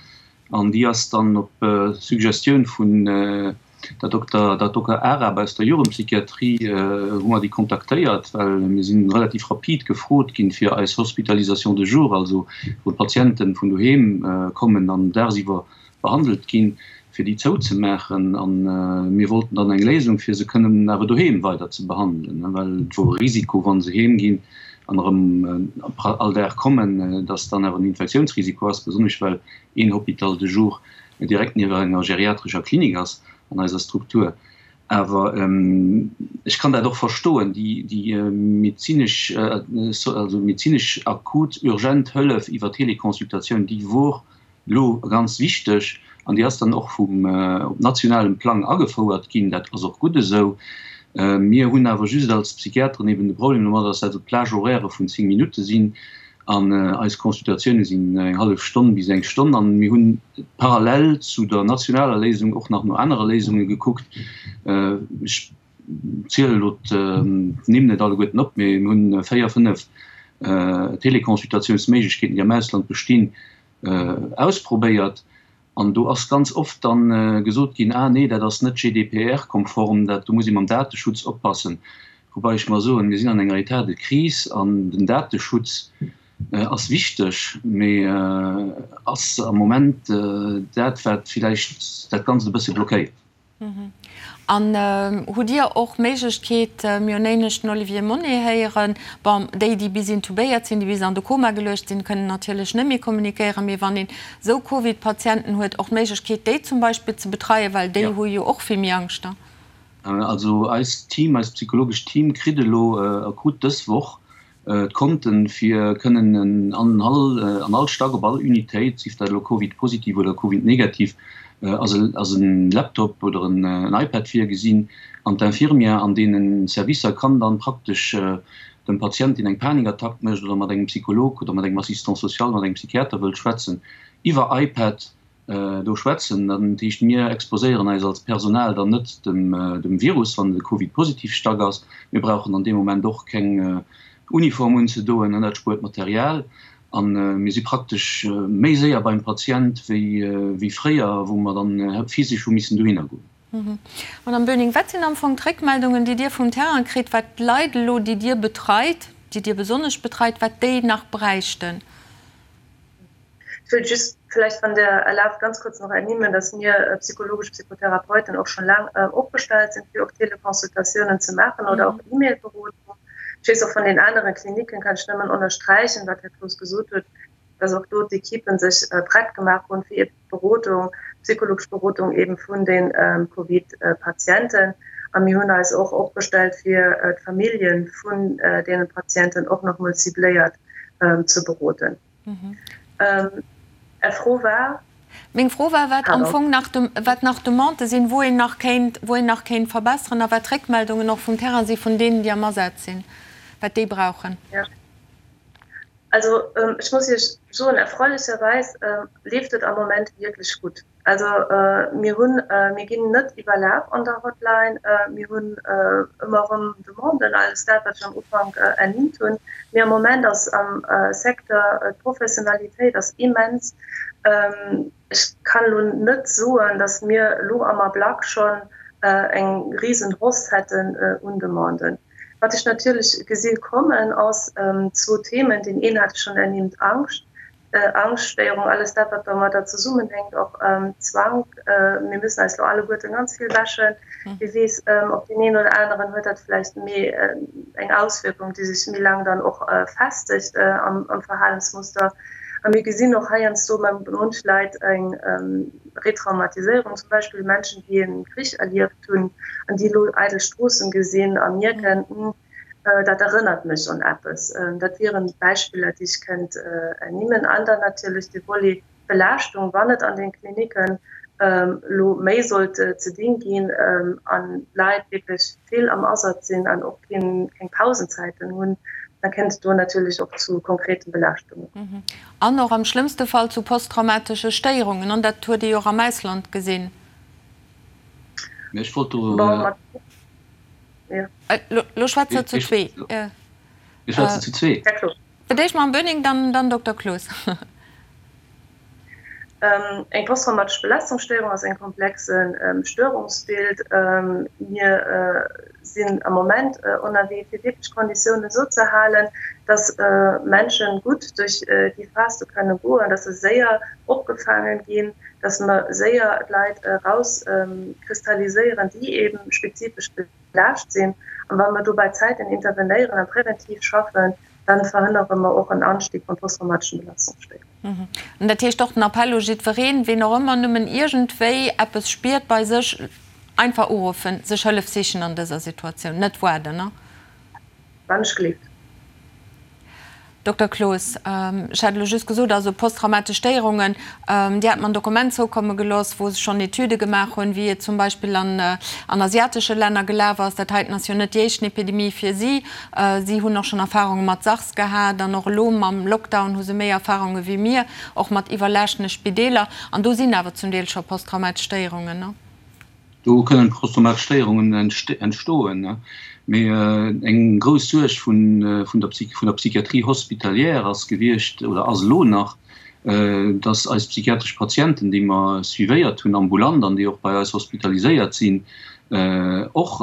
an déi ass dann op Suggestioun vun Der Dokter, der Dokter Arab aus der Jugendpsychiatrie hu mer déi kontaktéiert, well mir si relativ rapid gefrot ginn, fir eis Hospitalisation de jour, also wou d'Patienten vun doheem kommen an dagsiwwer behandelt ginn, fir déi zouzemaachen. A mir wollten dann eng Léisung, fir se kënnen awer doheem weider ze behandelen, well et wor e Risiko, wa se heem ginn an erëm all Dag kommen, dass dann awer en Infektiounsrisiko ass, besonnesch well een Hôpital de jour direkt niewent enger geriatrescher Klinik ass an eiser Struktur. Awer ech kann dat och verstoen, déi medezinesch, also medezinesch akut urgent Hëllef iwwer Teleconsultatioun, déi wor elo ganz wichteg an déi ass dann och vum op nationalem Plang agefouert ginn. Dat ass och gutt esou. Mir hunn awer just als Psychiateren eben de Problem domat, dass dat esou Plage-horairë vun 10 Minutte sinn An eis Consultatioune sinn eng hallef Stonn bis eng Stonn. An mir hunn parallel zu der nationaler Léisung och nach no anere Léisunge gekuckt. Ech zielen elo d'Nimm net alleguerten op, mee mir hunn 4, 5 Teleconsultatiounsméiglechkeeten, déi am Ausland bestinn. Ausprobéiert. An do ass ganz oft dann gesot ginn, ah nee, dat ass net GDPR-konform, dat do muss ee mam Dateschutz oppassen. Woubai ech mer soen, mir sinn an enger État de crise an den Dateschutz ass wichteg, mee ass am Moment dat, wat villäicht dat Ganzt e bësse blockéiert. An hutt Dir och d'Méiglechkeet, mir hunn éinescht den Olivier Monet héieren, bon, déi, déi bis intubéiert sinn, déi bis an de Koma geluecht sinn, kënnen natierlech net méi kommunikéieren, mee wann een esou Covid-Patienten huet, och d'Méiglechkeet, déi zum Beispill ze betreien, well déi hu jo och vill méi Angscht da. Also eist Team, eist psychologescht Team kritt elo a krut dës Woch D'Konten, fir kënnen an all an all Stack, op all Unitéit, sief dat elo Covid-positiv oder Covid-negativ, ass e ass en Laptop oder en iPad virgesinn. An d'Infirmière an deene Servicer kann dann praktesch dem Patient, deen eng Panikattack mécht oder mat engem Psycholog oder mat engem Assistant social, mat engem Psychiater wëllt schwätzen, iwwer iPad do schwätzen. Dat heescht, mir exposéieren eis als Personal dann net dem Virus, wann et e Covid-positiv Stack ass. Mir brauchen an deem Moment och keng Uniform unzedoen, dat spuert Material. A mir si praktesch méi séier beim Patient wéi fréier, wou mer dann physesch hu missen dohinner goen. Madame Böning, wat sinn am Fong d'Réckmeldungen, déi Dir vum Terrain kritt, wat d'Leit elo, déi Dir betreit, déi Dir besonnesch betreit, wat déi nach bräichten? Ich will just vielleicht wann Der erlaubt ganz kurz noch ernimmen, dass mir psychologisch Psychotherapeuten och schon laang opgestellt sinn, fir och Teleconsultatiounen ze maachen oder och E-Mail-Berodung. Ech weess och vun den anere Kliniken, kann ech nëmmen ënnersträichen, wat Här Cloos gesot huet, dass och do d'Equipen sech prett gemaach hunn, fir Berodung, psychologesch Berodung eben vun de Covid-Patienten. A mir hunn eis och opgestellt, fir d'Famillje vun deene Patienten och nach emol cibléiert ze beroden. Är Fro war? Meng Fro war, wat am Fong nach, wat nach Demandë sinn, wou een nach kéint, wou een nach kéint verbesseren a wat d'Réckmeldungen och vum Terrain si vun deenen, déi am Asaz sinn, wat déi brauchen. Also ech muss Iech soen, erfreulicherweis leeft et am Moment wierklech gutt. Also mir hunn, mir ginn net iwwerlaf an der Hotline. Mir hunn ëmmer erëm Demanden, alles dat, wat ech am Ufank ernimmt hunn. Mee am Moment ass am Secteur d'Professionalitéit ass immens. Ech kann elo net soen, datt mir elo am Ablack schonn eng risen Hausse hätten un Demanden. Wat ech natierlech gesi kommen, ass zwou Themen. Deen een hat ech schonn ernimmt, Angscht, Angschtstéierung, alles dat, wat domadder zesummenhänkt, och Zwank. Mir müssen eis elo alleguerten ganz vill wäschen. Wie weess, op deen een oder aneren huet dat vläicht méi eng Auswierkung, déi sech méi laang dann och festegt am Verhalensmuster. A mir gesinn och heiansdo bei munch Leit eng Retraumatiséierung, zum Beispill Menschen, déi e Krich erlieft hunn an déi elo eidel Stroossen gesinn a mierken, Hm, dat erënnert mech un eppes. Dat wieren Beispiller, déi ech kënnt ernimmen. An dann natierlech de Volet Belaaschtung, wann et an den Klinicken elo méi sollt ze dinn ginn an d'Leit wierklech vill am Asaz sinn an och keng Pausenzäiten hunn, da kënnt et do natierlech och zu konkreten Belaaschtungen. An och am schlëmmste Fall zu posttraumatesche Stéierungen. An dat huet ee jo och am Ausland gesinn. Mä ech wollt do. Elo schwätzt Der zu zwee. Mir schwätzen zu zwee. Fir d'éischt Mme Böning, dann Dokter Cloos. Eng posttraumatesch Belastungsstéierung ass eng komplexe Störungsbild. Mir sinn am Moment ënnerwee, fir wierklech d'Konditiounen esou ze halen, dass Menschen gutt duerch déi Phas do kënne goen, dass se séier opgefaangen ginn, dass mer séier d'Leit erauskristalliséieren, déi eeben spezifesch belaascht sinn. An wa mer do bei Zäiten intervenéieren a präventiv schaffen, dann verhënnere mer och en Anstieg vun posttraumateschen Belastungsstéierungen. An dat heescht och den Appell u jiddwereen, ween och ëmmer nëmmen iergendwéi eppes spiert bei sech, einfach uruffen, sech Hëllef sichen an dëser Situatioun, net waarden, ne? Wann ech gleeft. Dokter Cloos, ech hat elo just gesot, also posttraumatesch Stéierungen, Dir hat mer en Dokument zoukomme gelooss, wou se schonn Etüde gemaach hunn, wéi et zum Beispill an an asiatesche Länner gelaf ass. Dat heiten ass jo net déi éischten Epidemie fir si. Si hunn och schonn Erfarunge mat SARS gehat an och elo mam Lockdown hu se méi Erfarunge wéi mir, och mat iwwerlaaschtene Spideeler. An do sinn awer zum Deel scho posttraumatesch Stéierungen, ne? Do kënnen posttraumatesch Stéierungen entstoen. Mee eng grouss Suerg vun der Psychiatrie hospitalière ass gewiescht oder ass elo nach, Dass eis psychiatresch Patienten, déi mer suivéiert hunn ambulant an déi och bei eis hospitaliséiert sinn, och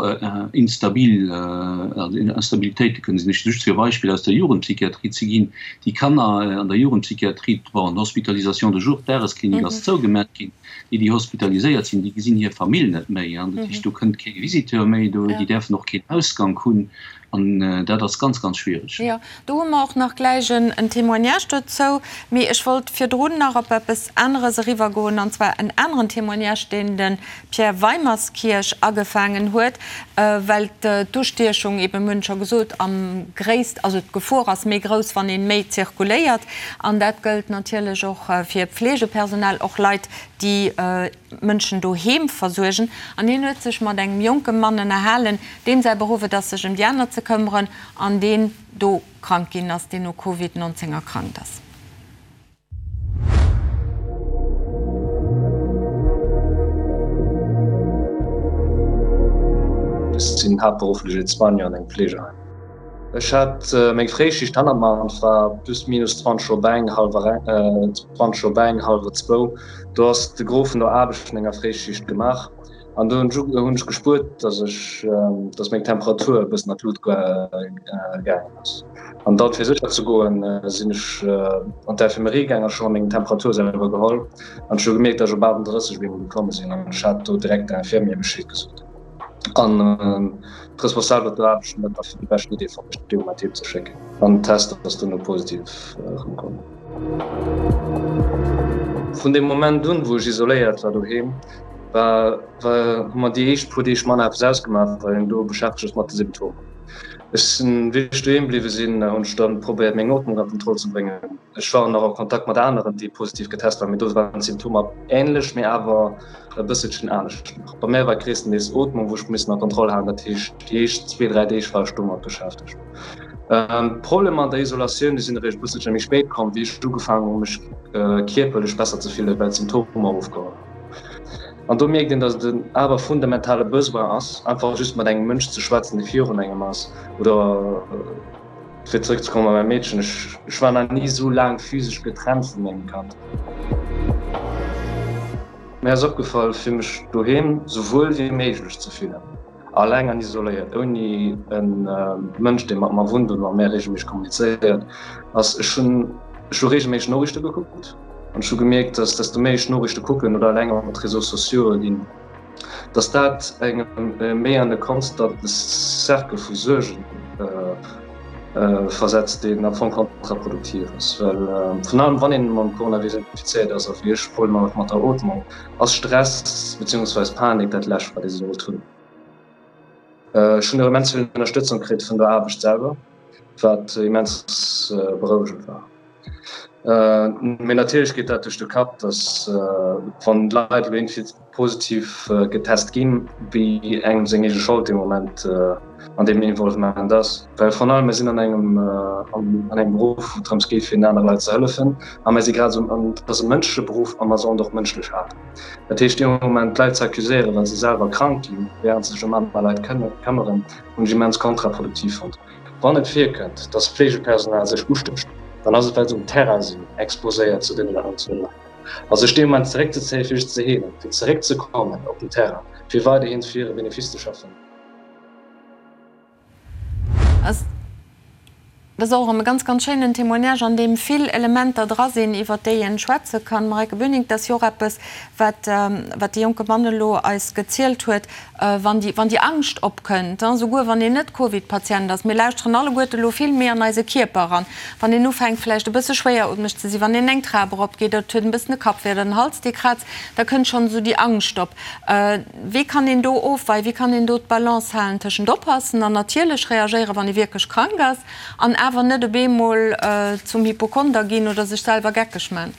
instabil, also Instabilitéite kënnen sinn. Ech just fir e Beispill aus der Jugendpsychiatrie ze ginn, Déi Kanner an der Jugendpsychiatrie, bon, d'Hospitalisation de jour, d'Dagesklinik ass zougemat ginn, déi, déi hospitaliséiert sinn, déi gesinn hir Famill net méi. Dat heescht, do kënnt kee Visiteur méi, déi däerfen och keen Ausgank hunn. An dat ass ganz, ganz schwiereg. Jo, do hu mer och nach gläich en Témoignage dozou. Mee ech wollt virdrun nach op eppes aneres eriwwergoen, an zwar en aneren Témoignage, deen de Pierre Weimerskirch agefaangen huet, well d'Ustiechung eeben, mir hunn et scho gesot, am gréisst, also d'Gefor ass méi grouss, wann ee méi zirkuléiert. An dat gëllt natierlech och fir Pflegepersonal, och Leit, déi Mënschen doheem versuergen. An hien huet sech mat engem jonke Mann ënnerhalen, deem säi Beruff et ass, sech ëm déi aner ze këmmeren an deen do krank ginn ass, deen u Covid 19 erkrankt ass. Ech sinn haaptberufflech Aide-soignant an engem Fleegeheim. Ech hat meng Fréischicht hannert mer an et war plus minus 20 op eng, hallwer eng, 20 op eng, hallwer zwou. Do ass de Gros vun der Aarbecht vun enger Fréischicht gemaach an do hunn ech gespuert, dass ech, dass meng Temperatur e bëssen an d'Lut gaangen ass. An dann, fir sécher ze goen, sinn ech an d'Infirmerie gaangen an ech hu mer meng Temperatur selwer geholl an ech hu gemierkt, dass ech op 38 op eemol geklomme sinn an ech hat do direkt der Infirmière Bescheed gesot. An d'Responsabel op der Aarbecht hunn dat da fir déi beschten Idee fonnt, mech dee Moment heem ze schécken. An den Test ass duerno positiv erëmkomm. Vun deem Moment un, wou ech isoléiert war doheem, war, war, hu mer déi éischt puer Deeg manner eppes ausgemaach, well een do beschäftegt ass mat de Symptomer. Ech sinn, wéi ech doheem bliwwe sinn, hunn ech dann probéiert, meng Ootmung a Kontroll ze bréngen. Ech war nach a Kontakt mat aneren, déi positiv getest waren, mee do waren d'Symptomer änlech, mee awer e bësselchen anescht nach. Bei mär war et gréisstendeels Ootmung, wou ech missen a Kontroll halen, dat heescht déi éischt zwee, dräi Deeg war ech domat beschäftegt. D'Problemer an der Isolatioun, déi sinn eréischt e bësselche méi spéit komm, wéi ech ugefaangen hu mech kierperlech besser ze fillen, well d'Symptomer ofgeholl hunn. An do mierkt een, datt et en awer fundamentale Besoin ass, einfach just mat engem Mënsch ze schwätzen, dee virun engem ass oder Fir zeréck ze kommen op mäi Meedchen, ech war nach ni esou laang physesch getrennt vu mengem Kand. Mir ass opgefall, fir mech doheem sou wuel wéi méiglech ze fillen, alleng an isoléiert, ouni e Mënsch, dee mat mer wunnt oder mat mär reegelméisseg kommunizéiert, ass, ech hunn ech hu reegelméisseg Noriichte gekuckt an ech hu gemierkt, dass desto méi ech Noriichte kucken oder eleng op d'Réseaux sociaux'e ginn, dass dat engem méi an e konstante Cercle vu Suergen versetzt, deen am Fong kontraproduktiv ass. Well virun allem wann een mam Coronavirus infizéiert ass, a wéi ech Problemer huet mat der Ootmung, ass Stress beziehungsweis Panik dat Lescht, wat ee sollt hunn. Ech hunn och immens vill Ënnerstëtzung kritt vun der Aarbecht selwer, wat immens berouegend war. Mee natierlech geet dat duerch de Kapp, datt wann d'Leit elo iergendwéi positiv getest ginn, wéi engem seng eege Schold dee Moment an deem Involvement ass. Well virun allem, mir sinn an engem an engem Beruff, wou et drëms geet, fir den anere Leit ze hëllefen. A mir si grad esou, an et ass e mënschleche Beruff a mer sollen och mënschlech halen. Dat heescht, dee Moment d'Leit ze accuséieren, well se selwer krank ginn, wärend se sech ëm aner Leit këmmeren, hunn ech immens kontraproduktiv fonnt. Wann et virkënnt, dass Fleegepersonal sech ustécht, dann ass et well se um Terrain sinn, exposéiert zu deenen aneren Leit. A sech dee Moment zeréckzezéien, fir sech ze heelen, fir zeréckzekommen op den Terrain, fir weiderhin fir hire Benefice ze schaffen. Dat ass och erëm e ganz, ganz schéinen Témoignage, an deem vill Elementer dra sinn, iwwert déi een schwätze kann. Marijke Böning, dat ass jo och eppes, wat, wat dee jonke Mann elo eis gezielt huet, wann déi, wann déi Angscht opkënnt, souguer wann een net Covid-Patient ass. Mir lauschteren alleguerte elo vill méi an eise Kierper eran. Wann een ufänkt vläicht e bësse schwéierootmeg ze sinn, wann een eng Trap eropgeet oder et huet en bëssen e Kappwéi oder den Hals dee krazt, da kënnt schonn esou déi Angscht op. Wéi kann een do ofweien, wéi kann een do d'Balance halen tëschent oppassen an natierlech reagéieren, wann ee wierklech krank ass, an awer net op eemol zum Hypochonder ginn oder sech selwer geckeg man?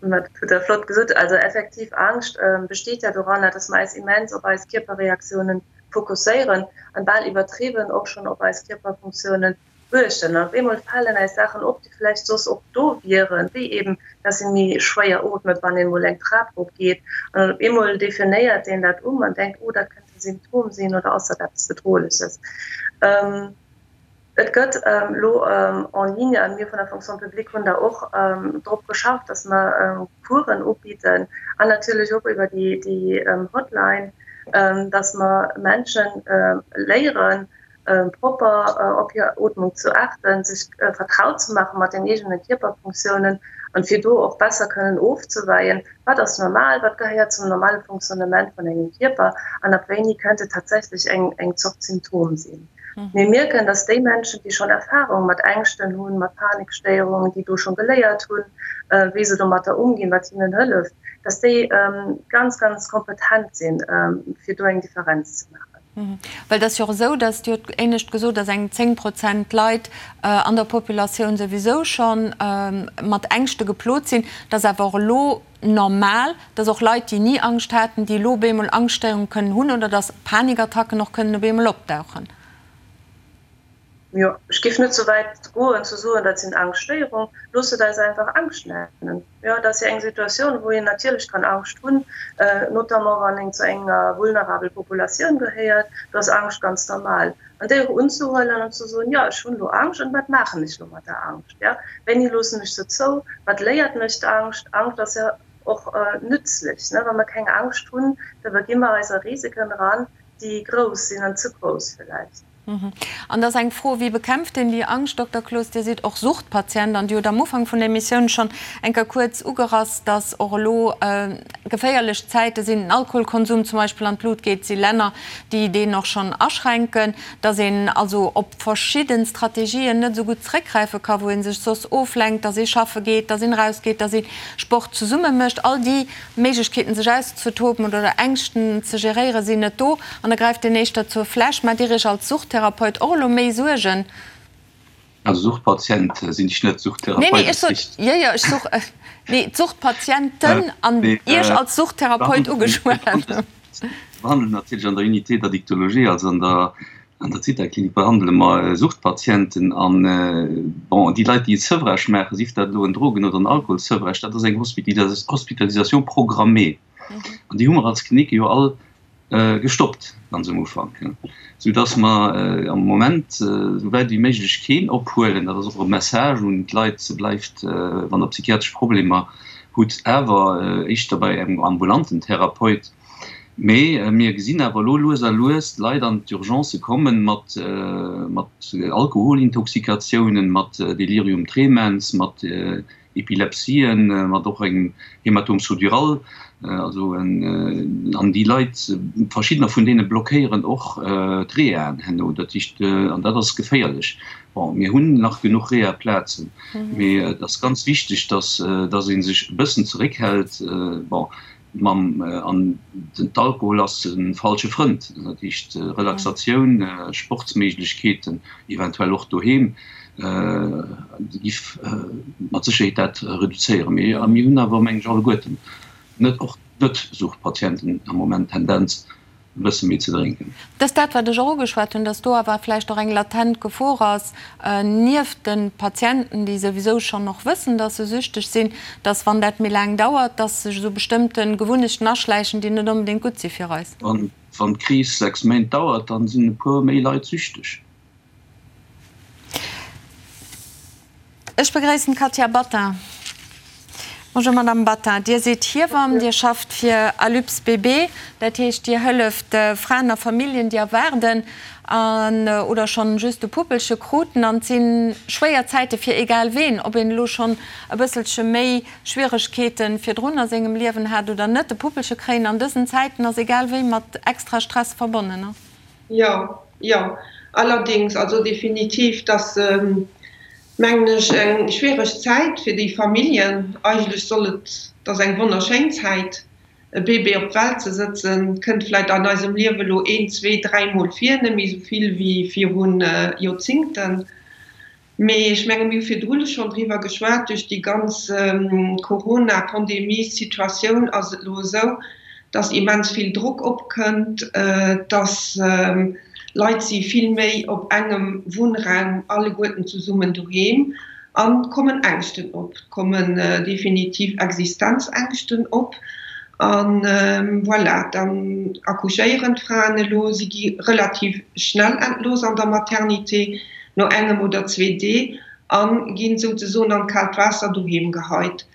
Ma dat hutt Der flott gesot. Also effektiv, Angscht besteet ja doranner, dass mer eis immens op eis Kierperreaktiounen fokusséieren an bal iwwertriwwen och schonn op eis Kierperfunktiounen uechten. An op eemol falen eis Saachen op, déi vläicht soss och do wieren, wéi eben, dass ee méi schwéier ootmet, wann een emol eng Trap erop geet. An dann op eemol definéiert een dat um an denkt, oh, dat kënnt e Symptom sinn oder ass dat eppes Bedrohleches. Et gëtt elo en ligne, a mir vun der Fonction publique hunn da och drop geschafft, dass mer Coursen ubidden an natierlech och iwwer déi Hotline, dass mer Menschen léieren, propper op hir Ootmung zu achten, sech vertraut ze maache mat den eegene Kierperfunktiounen an fir do och besser kënnen ofzeweien, wat ass normal, wat gehéiert zum normale Fonctionnement vun engem Kierper an ab wéini kënnt et tatsächlech eng Zort Symptom sinn. Mir mierken, dass déi Menschen, déi schonn Erfahrung mat Ängschten hunn, mat Panikstéierungen, déi do scho geléiert hunn, wéi se domatter umginn, wat hinnen hëlleft, dass déi ganz, ganz kompetent sinn, fir do eng Differenz ze maachen. Well et ass jo och esou, dass, Dir hutt éinescht gesot, dass eng 10 Prozent Leit an der Populatioun souwisou scho mat Ängschte geplot sinn, dass awer och elo normal, dass och Leit, déi ni Angscht haten, déi elo op eemol Angschtstéierunge kënnen hunn oder dass Panikattacken och kënnen op eemol opdauchen. Jo, ech géif net sou wäit goen ze soen, dat sinn Angschtstéierung. Loosst et eis einfach Angscht nennen. Jo, et ass jo eng Situatioun, wou een natierlech kann Angscht hunn, notamment wann een zu enger vulnerabel Populatioun gehéiert. Do ass Angscht ganz normal. An déi och unzehuelen an ze soen, jo, ech hunn elo Angscht an wat maachen ech elo mat der Angscht? Jo, wéini loossen ech se zou? Wat léiert mech d'Angscht? Angscht ass jo och nützlich, ne? Wa mer keng Angscht hunn, da begi mer eis a Risiken eran, déi grouss sinn an ze grouss villäicht. An da ass eng Fro, Wéi bekämpft een déi Angscht? Dokter Cloos, Dir sidd och Suchtpatient an Dir hutt am Ufank vun der Emissioun schonn eng Kéier kuerz ugerass, dass och elo geféierlech Zäite sinn, den Alkoholkonsum zum Beispill an d'Lut geet, et si Länner, déi deen och schonn aschränken, dass een also op verschidde Strategien net esou gutt zréckgräife ka wou ee sech soss oflenkt, dass ee schaffe geet, dass een erausgeet, dass ee Sport zesumme mécht. All déi Méiglechkeeten sech auszetoben oder Ängschten ze geréieren sinn net do an da gräift een éischter zur Fläsch. Maacht Dir Iech als Suchttherapeut och elo méi Suergen? Also Suchtpatient sinn ech net, Suchttherapeut Nee, nee, ech sot, jo, jo, ech such, nee, d'Suchtpatienten an Iech als Suchttherapeut ugeschwat. Mir behandelen natierlech an der Unité d'addictologie, also an der An der Zithaklinik behandele mer Suchtpatienten an, bon, déi Leit, déi e Sevrage maachen, sief dat elo en Drogen oder en Alkoholsevrage, dat ass eng Hospitalisation programmée. An déi hu mer als Klinik jo all gestoppt ganz um Ufank, soudass mer am Moment esou wäit wéi méiglech keen ophuelen. Dat ass och e Message un d'Leit, Bleift, wann Der psychiatresch Problemer hutt, awer éischter bei engem ambulanten Therapeut. Mee mir gesinn awer elo lues a lues d'Leit an d'Urgencë kommen mat Alkoholintoxikatiounen, mat Delirium tremens, mat Epilepsien, mat och engem Hématome sous-dural. Also an déi Leit, verschiddener vun deene blockéieren och d'Rehaen herno. Dat heescht, an dat ass geféierlech. Bon, mir hunn nach genuch Reha-Plazen, mee et ass ganz wichteg, dass ee sech e bëssen zeréckhält. Bon, Mam an den d'Alkohol ass e falsche Frënd. Dat heescht Relaxatioun, Sportsméiglechkeeten, eventuell och doheem, giff mat Sécherheet dat reduzéieren. Mee mir hunn awer, meng ech, alleguerten, net och d'Net-Suchtpatienten am Moment d'Tendenz, e bësse méi ze drénken. Dat ass dat, wat ech och ugeschwat hunn, dass do awer vläicht och eng latent Gefor ass, nieft de Patienten, déi souwisou schonn och wëssen, dass se süchteg sinn, dass, wann dat méi laang dauert, dass sech esou bestëmmte Gewunnechten aschläichen, déi net onbedéngt gutt si fir eis. Wann d'Kris 6 Méint dauert, dann sinn e puer méi Leit süchteg. Ech begréissen d'Katia Battin. Bonjour Madame Battin, Dir sidd Hiewamm, Dir schafft fir Alups BB, dat heescht Dir hëlleft Fraen a Familljen, déi erwaarden an oder schonn just e Puppelche kruten. An et si schwéier Zäite fir egal ween, ob een elo schonn e bësselche méi Schwieregkeete virdrun a sengem Liewen hat oder net. E Puppelche kréien an dësen Zäiten ass egal wéi mat extra Stress verbonnen. Jo, jo, allerdings, also definitiv, dass mengen ech eng schwiereg Zäit fir déi Familljen. Eigentlech soll et, et ass eng wonnerschéin Zäit, e Bébé op d'Welt ze sëtzen, kënnt vläit an eisem Liewe elo een, zwee, dräimol vir, net méi esou vill wéi viru Joerzingten. Mee ech menge mir hu virdrun schonn driwwer geschwat, duerch déi ganz Corona-Pandemie-Situatioun ass et elo esou, datt immens vill Drock opkënnt, datt Leit si vill méi op engem Wunnraum alleguerten zesummen doheem an et kommen Ängschten op, et kommen definitiv Existenzängschten op. A voilà, dann accouchéieren d'Fraen elo, si gi relativ schnell entlooss an der Maternité. no engem oder zwee Dee a ginn souzesoen an d'kaalt Waasser doheem geheit.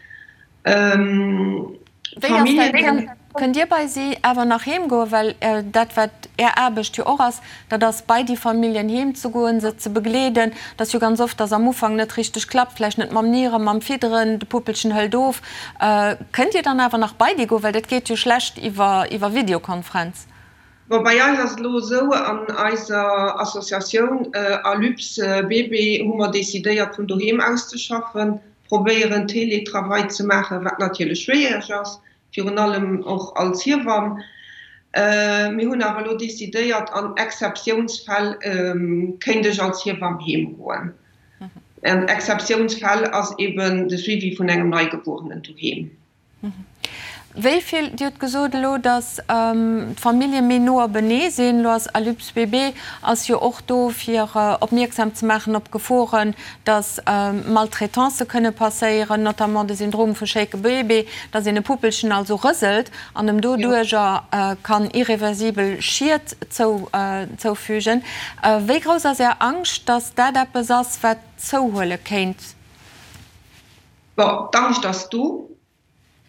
Wéi ass dat? Kënnt Dir bei si awer nach heem goen? Well dat, wat Är Aarbecht jo och ass, dat ass bei déi Familljen heem ze goen, se ze begleeden. Et ass jo ganz oft, dass am Ufank net richteg klappt, vläicht net mam Nieren, mam Fidderen, de Puppelchen hëlt of. Kënnt Dir dann awer nach bei déi goen? Well dat geet jo schlecht iwwer Videokonferenz. Bon, bei eis ass et elo esou, an eiser Associatioun Alyps BB hu mer decidéiert vun doheem aus ze schaffen, probéieren Teletravail ze maachen, wat natierlech schwiereg ass, virun allem och als Hiewamm. Mir hunn awer elo decidéiert, an Exzeptiounsfäll kéint ech als Hiewamm heem goen. An Exzeptiounsfäll ass eben de Suivi vun engem Neigebuerenen doheem. Wéi vill, Dir hutt gesot elo, datt d'Famillje méi no openee sinn. Elo ass Alyps BB ass jo och do fir opmierksam ze maachen op Geforen, datt Maltraitancë kënne passéieren, notamment de Syndrom vu Shaken Baby, datt een e Puppelchen also rëselt an em doduerjer kann irreversibel Schied zoufügen. Wéi grouss ass Är Angscht, datt dat eppes ass, wat zouhuele kéint? Bon, d'Angscht ass do.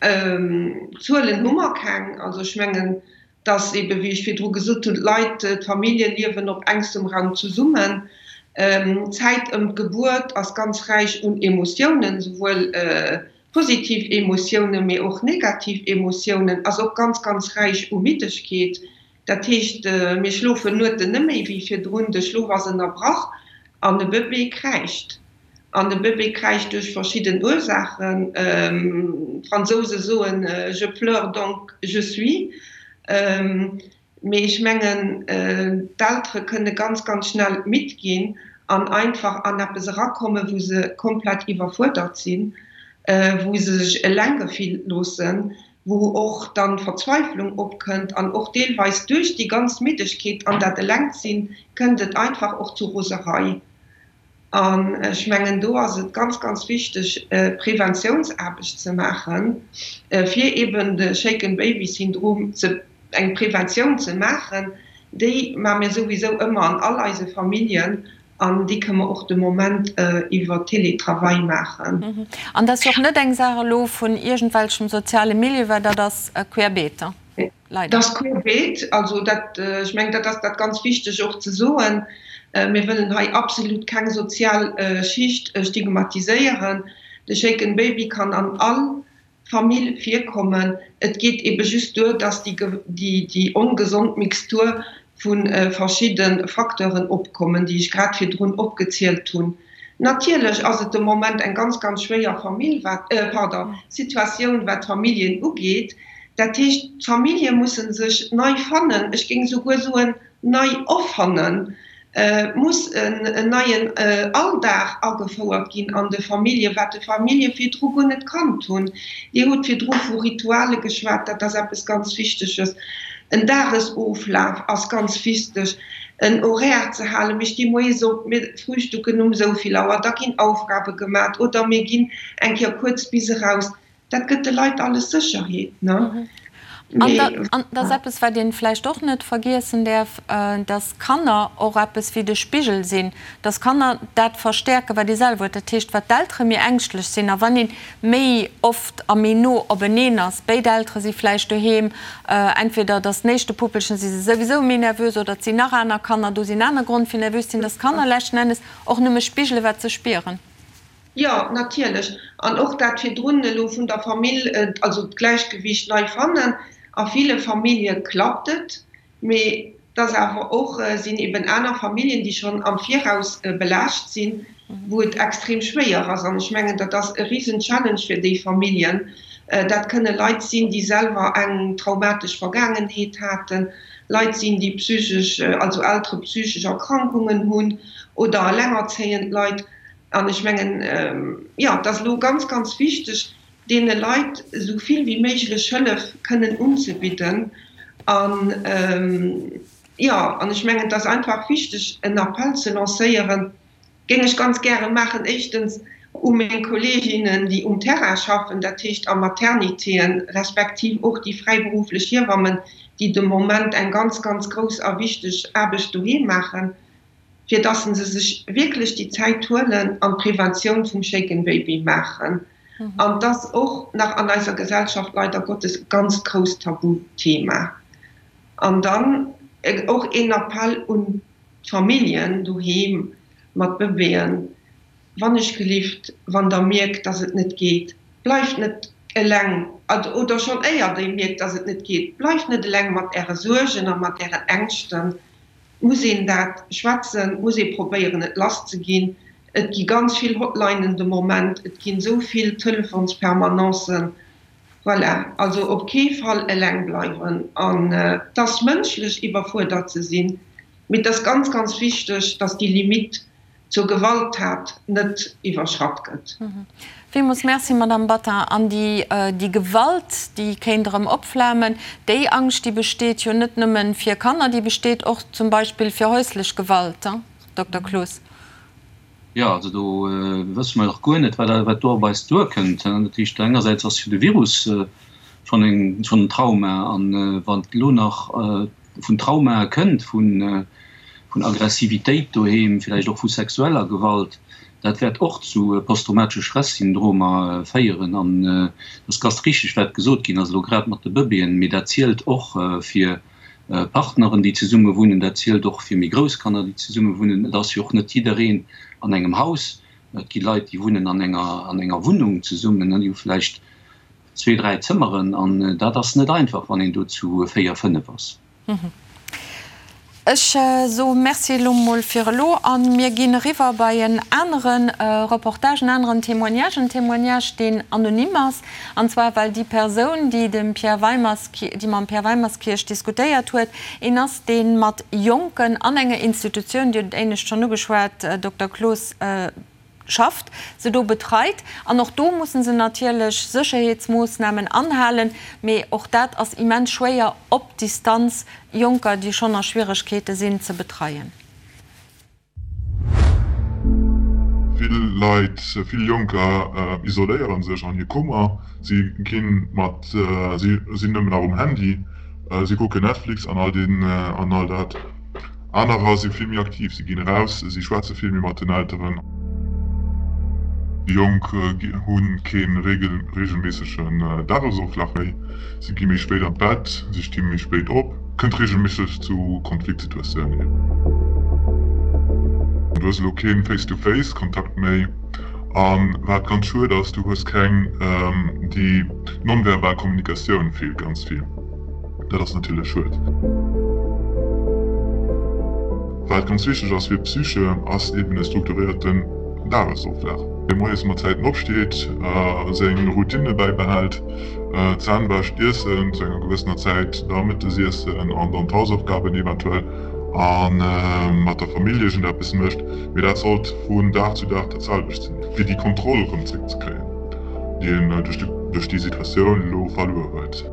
Zuelen hu mer keng. Also ech mengen, dass eebe wéi ech virdru gesot hunn, d'Leit, d'Famillje liewen op engstem Raum zesummen. D'Zäit ëm d'Gebuert ass ganz räich un Emotiounen, souwuel positiv Emotiounen, mee och negativ Emotiounen, ass och ganz, ganz räich u Middegkeet. Dat heescht, mir schlofen Nueten net méi wéi virdrun, de Schlof ass ënnerbrach an de Bëbee kräischt. An de Bëbee kräischt duerch verschidden Ursaachen. D'Fransouse soen, Je pleure donc je suis. Mee ech mengen, d'Eltere kënne ganz, ganz schnell midd ginn an einfach an eppes erakommen, wou se komplett iwwerfuerdert sinn, wou se sech eleng gefillt loossen, wou och dann d'Verzweiflung opkënnt an och deelweis duerch déi ganz Middegkeet an dat Elengsinn kënnt et einfach och zu Roserei. An ech mengen, do ass et ganz, ganz wichteg, Preventiounsaarbecht ze maachen, fir eben de Shaken Baby Syndrom ze, eng Preventioun ze maachen. Déi maache mir souwisou ëmmer an all eise Familljen An déi kënne mer och de Moment iwwer Teletravail maachen. An dat ass jo och net eng Saach elo vun iergendwelchem soziale Milieu, well dat ass querbeet, leider. Dat ass querbeet. Also dat, ech mengen, dat ass dat ganz Wichteg och ze soen. Mir wëllen hei absolut keng sozial Schicht stigmatiséieren. De Shaken Baby kann an all Famill virkommen. Et geet ebe just duer, dass déi ongesond Mixtur vu verschidde Facteuren opkommen, déi ech grad virdrun opgezielt hunn. Natierlech ass et de Moment eng ganz, ganz schwéier Famill, wat, pardon, Situatioun, wat d'Familljen ugeet. Dat heescht, d'Famillje musse sech nei fannen, ech géing souguer soen, nei erfannen. Et muss en neien Alldag agefouert ginn an de Familljen, wat de Famillje virdru guer net kannt hunn. Dir hutt virdru vu Rituale geschwat, dat ass eppes ganz Wichteges. En Dagesoflaf ass ganz wichteg, en Horaire ze halen. Mir sti moies op, mir frühstücken um esou vill Auer, da ginn Aufgabe gemat oder mir ginn eng Kéier kuerz bis eraus. Dat gëtt de Leit alles Sécherheet, ne? An dat ass eppes, wat ee vläicht och net vergiessen däerf, dass Kanner och eppes wéi de Spigel sinn, dass Kanner dat verstäerken, wat ee selwer huet. Dat heescht, wat d'Eltere méi ängschtlech sinn a wann ee méi oft a méi no openeen ass, béid Eltere si vläicht doheem, entweder dass den éischte Puppelchen, si se souwisou méi nervös oder et sinn nach aner Kanner do, sinn aner Grond fir nervös ze sinn, dass d'Kanner leschten Ennes och nëmme spigelen, wat se spieren. Jo, natierlech. An och dat virdrun elo vun der Famill, also d'Gläichgewicht nei fannen. A ville Famillje klappt et, mee et ass awer och, sinn eben aner Familljen, déi schonn am Viraus belaascht sinn, wou et extrem schwéier ass. An ech mengen, dat ass e risen Challenge fir déi Familljen. Dat kënne Leit sinn, déi selwer eng traumatesch Vergaangenheet haten, Leit sinn, déi psychesch, also Eltere psychesch Erkrankungen hunn oder elengerzéiend Leit. An ech mengen, jo, et ass elo ganz, ganz wichteg, deene Leit esou vill wéi méiglech Hëllef kënnen unzebidden. An, jo, an ech mengen, et ass einfach wichteg, en Appell ze lancéieren, géing ech ganz gäre maachen, éischtens u meng Kolleeginnen, déi um Terrain schaffen, dat heescht a Maternitéen, respektiv och déi fräiberufflech Hiewammen, déi de Moment eng ganz, ganz grouss a wichteg Aarbecht doheem maachen. fir dass se sech wierklech déi Zäit huelen an d'Preventioun vum Shaken Baby maachen. An et ass och nach an eiser Gesellschaft leider Gottes e ganz grousst Tabuthema. An dann och een Appell un d'Familljen doheem mat Bëbeeën, Wannechgelift, wann Der mierkt, dass et net geet, bleift net eleng, oder schonn éier Der mierkt, dass et net geet, bleift net eleng mat Äre Suergen a mat Ären Ängschten. Et muss een dat schwätzen, et muss ee probéieren, et lasszeginn. Et gi ganz vill Hotlinen de Moment, et ginn esou vill Telefonspermanencen. Voilà, also op kee Fall eleng bleiwen. An et ass mënschlech, iwwerfuerdert ze sinn, mee et ass ganz, ganz wichteg, dass déi Limite zur Gewalttat net iwwerschratt gëtt. Villmools Merci, Madamm Battin. An déi, déi Gewalt, déi kéint erëm opflamen, déi Angscht, déi besteet jo net nëmme fir Kanner, déi besteet och zum Beispill fir häuslech Gewalt, Dokter Cloos. Jo, also do wësse mer nach guer net, wat do op eis duerkënnt. Dat heescht, engersäits ass jo de Virus schonn en Trauma, an wann elo nach vun Traumae kënnt, vun Aggressivitéit doheem, villäicht och vu sexueller Gewalt, dat wäert och zu posttraumatesche Stressyndromer féieren. An et ass ganz richteg, wat gesot ginn ass, elo grad mat de Bëbeeën, mee dat zielt och fir Partneren, déi zesumme wunnen, dat zielt och fir méi grouss Kanner, déi zesumme wunnen. Et ass jo och net jiddereen an engem Haus. Et gi Leit, déi wunnen an enger, an enger Wunnung zesummen, déi hu vläicht zwee, dräi Zëmmeren an dat ass net einfach, wann een do zu véier, fënnef ass. Ech soe Merci elo mol fir elo a mir ginn eriwwer bei en anere Reportage, en aneren Témoignage, en Témoignage, deen anonym ass, an zwar well déi Persoun, déi dem Pierre Weimers, déi mam Pierre Weimerskirch diskutéiert huet, een ass, dee mat Jonken an enger Institutioun, Dir hutt et éinescht schonn ugeschwat, Dokter Cloos, schafft, se do betreit. An och do mussen se natierlech Sécherheetsmoossnamen anhalen, mee och dat ass immens schwéier op Distanz Jonker, déi schonn a Schwieregkeete sinn, ze betreien. Vill Leit, vill Jonker isoléiere sech an hir Kummer. Si ginn mat, si sinn nëmmen nach um Handy, si kucken Netflix an all deen, an all dat. Anerer si vill méi aktiv, si ginn eraus, si schwätze vill méi mat den Elteren. Déi Jonk hu kee reegelméissegen Dagesoflaf méi, si gi méi spéit an d'Bett, si sti méi spéit op, kënnt reegelméisseg zu Konfliktsituatiounen. Du hues elo kee Face-to-Face-Kontakt méi a wat ganz schued ass, du hues keng, déi non-verbal Kommunikatioun feelt ganz vill. Dat ass natierlech schued. Wat ganz wichteg ass fir d'Psyche, ass eben e strukturéierten Dagesoflaf. Dee moies mat Zäiten opsteet, seng Routine bäibehält, d'Zänn wäscht, Iessen zu enger gewëssener Zäit, da Mëttesiessen an dann d'Hausaufgaben eventuell a mat der Famill iergendeppes mécht. Mee dat sollt vun Dag zu Dag dat selwecht sinn, fir déi Kontroll erëm zréckzekréien, déi een duerch déi Situatioun elo verluer huet.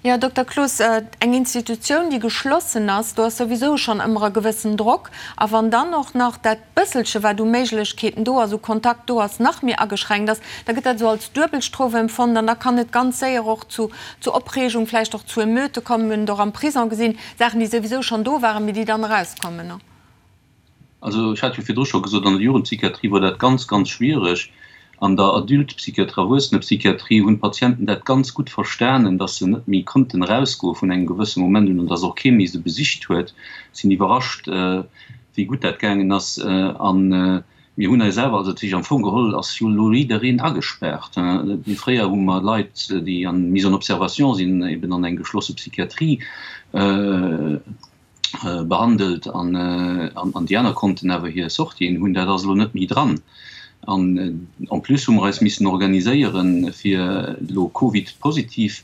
Jo, Dokter Cloos, eng Institutioun, déi geschlossen ass, do ass souwisou schonn ëmmer e gewëssen Drock. A wann dann och nach dat bësselche, wat u Méiglechkeeten do ass, u Kontakt do ass, nach méi ageschränkt ass, da gëtt dat esou als Duebelstrof empfonnt an da kann et ganz séier och zu zu Opreegung, vläicht och zu Emeute kommen. Mir hunn et och am Prison gesinn, Saachen, déi souwisou schonn do waren, mee déi dann erauskommen. Also ech hat jo virdru scho gesot, an der Jugendpsychiatrie wor dat ganz, ganz schwiereg. An der Adultpsychiatrie, Erwuessenepsychiatrie hunn d'Patienten dat ganz gutt verstanen, dass se net méi konnten erausgoe vun engem gewësse Moment un an dass och kee méi se besicht huet. Sinn iwwerrascht, wéi gutt dat gaangen ass. A mir hunn eis awer, also dat heescht am Fong geholl ass jo elo jiddereen agespaart. Fréier hu mer Leit, déi an Mise en observation sinn, eben an eng geschlosse Psychiatrie behandelt an an déi aner konnten awer hir Sortien hunn. Dat ass elo net méi dran. An en plus hu mer eis missen organiséieren, fir elo Covid-positiv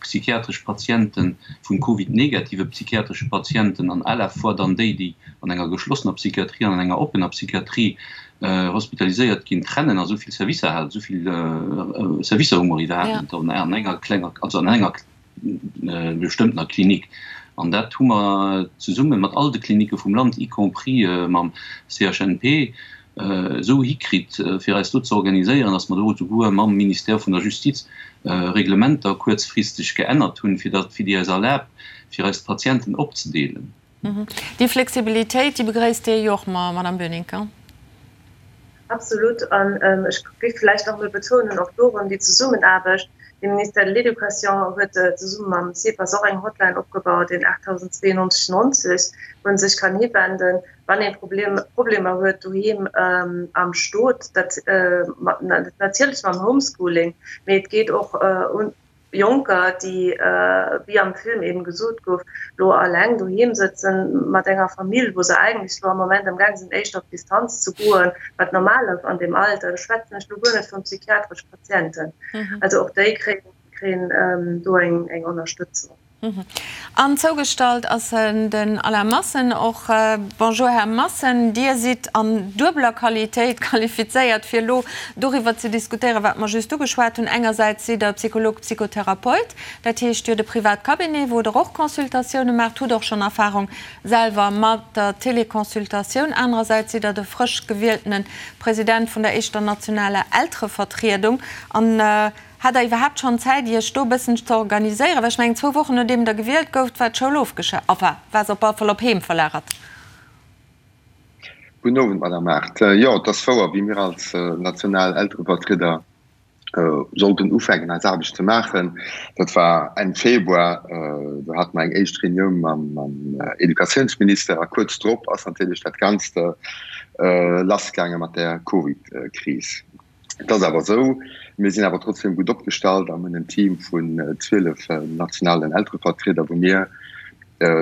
psychiatresch Patiente vun Covid-negative psychiatresche Patienten an à la fois dann déi, déi an enger geschlossener Psychiatrie an an enger oppener Psychiatrie hospitaliséiert ginn, trennen a souvill Servicer hat, souvill Servicer hu mer iwwerhaapt net an enger klenger, also an enger bestëmmtener Klinik. An dat hu mer zesumme mat all de Klinike vum Land, y compris mam CHNP, esou hikritt, fir eis do ze organiséieren, datt mer do esouguer mam Ministère vun der Justiz Reglementer kuerzfristeg geännert hunn, fir datt, fir déi eis erlaabt, fir eis d'Patienten opzedeelen. Déi Flexibilitéit, déi begréisst Dir jo och, Madame Boenincker. Absolut. An ech géif vläicht nach emol betounen, och do erëm déi Zesummenaarbecht. De Ministère de l'Éducation huet zesumme mam CEPAS och eng Hotline opgebaut, den 8092 90, wou ee sech kann hiwenden, wann ee Problemer huet doheem am Stot. Dat natierlech mam Homeschooling, mee et geet och un Jonker, déi, wéi am Film eben gesot gouf, lo alleng doheem sëtzen mat enger Famill, wou se eigentlech lo am Moment am gaang sinn, éischter op Distanz ze goen, wat normal ass an deem Alter. Do schwätzen ech lo guer net vun psychiatresch Patienten. Also och déi kréien do eng Ënnerstëtzung. An zougestallt ass den Alain Massen och. Bonjour Här Massen, Dir sidd an duebeler Qualitéit qualifizéiert fir elo doriwwer ze diskutéieren, wat mer just ugeschwat hunn. Engersäits sidd Der Psycholog, Psychotherapeut, dat heescht Dir hutt e privat Cabinet, wou Der och Consultatioune maacht, hutt och schonn Erfahrung selwer mat der Téléconsultatioun. Anerersäits sidd Der de frësch gewieltene President vun der éischter nationaler Elterevertriedung. An Hat der iwwerhaapt schonn Zäit Iech do e bëssen ze organiséieren? Well ech mengen, zwou Wochen nodeem der gewielt gouft, war d'Schoul ofgescha-, enfin, war se op alle Fall op Heem verlagert. Gudden Owend, Madame Mart. Jo, et ass wouer, wéi mir als national Elterevertrieder sollten ufänken eis Aarbecht ze maachen, dat war Enn Februar, do hate mer eng éischt Reunioun mam Educatiounsminister a kuerz drop ass natierlech dat Ganzt lassgaange mat der Covid-Kris. Et ass awer esou, mir sinn awer trotzdem gutt opgestallt an hunn en Team vun 12 nationalen Elterevertrieder, wou mir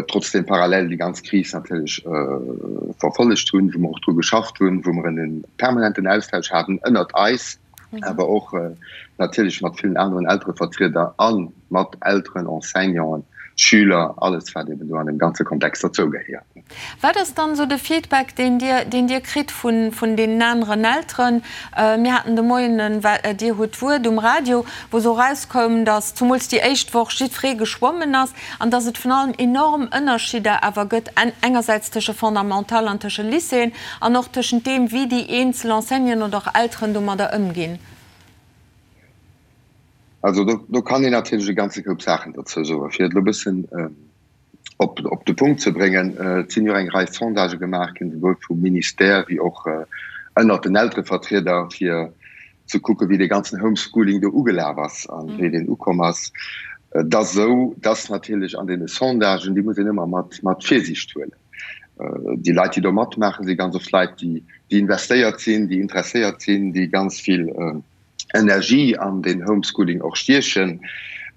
trotzdem parallel déi ganz Kris natierlech verfollegt hunn, wou mer och dru geschafft hunn, wou mer en permanenten Austausch haten ënnert eis, awer och natierlech mat villen aneren Elterevertrieder a mat Elteren, Enseignanten, Schüler, alles wat eben do an deem ganze Kontext derzougehéiert. Wat ass dann esou de Feedback, deen Dir, deen Dir kritt vun, vun deenen aneren Elteren? Mir haten de Moien en Dir hutt d'Wuert um Radio, wou esou erauskoum, datt zumools déi éischt Woch jiddweree geschwommen ass an datt et vun allem enorm Ënnerschidder awer gëtt, engersäits tësche Fondamental an tësche Lycéeën an och tëschent deem, wéi déi eenzel Enseignanten oder och Elteren domadder ëmginn. Also do, do kann een natierlech e ganze Koup Saachen dozou soen. Fir et elo e bëssen op, op de Punkt ze bréngen, Et sinn jo eng Rei Sondagë gemaach ginn, souwuel vum Ministère wéi och ënnert den Elterevertrieder, fir ze kucken, wéi dee ganzen Homeschooling do ugelaf ass a wéi deen ukomm ass. Et ass esou, dass natierlech an deene Sondagen, déi muss een ëmmer mat, mat Virsiicht huelen. Déi Leit, déi do matmaachen, si ganz oft Leit, déi, déi investéiert sinn, déi interesséiert sinn, déi ganz vill Energie an den Homeschooling och stiechen.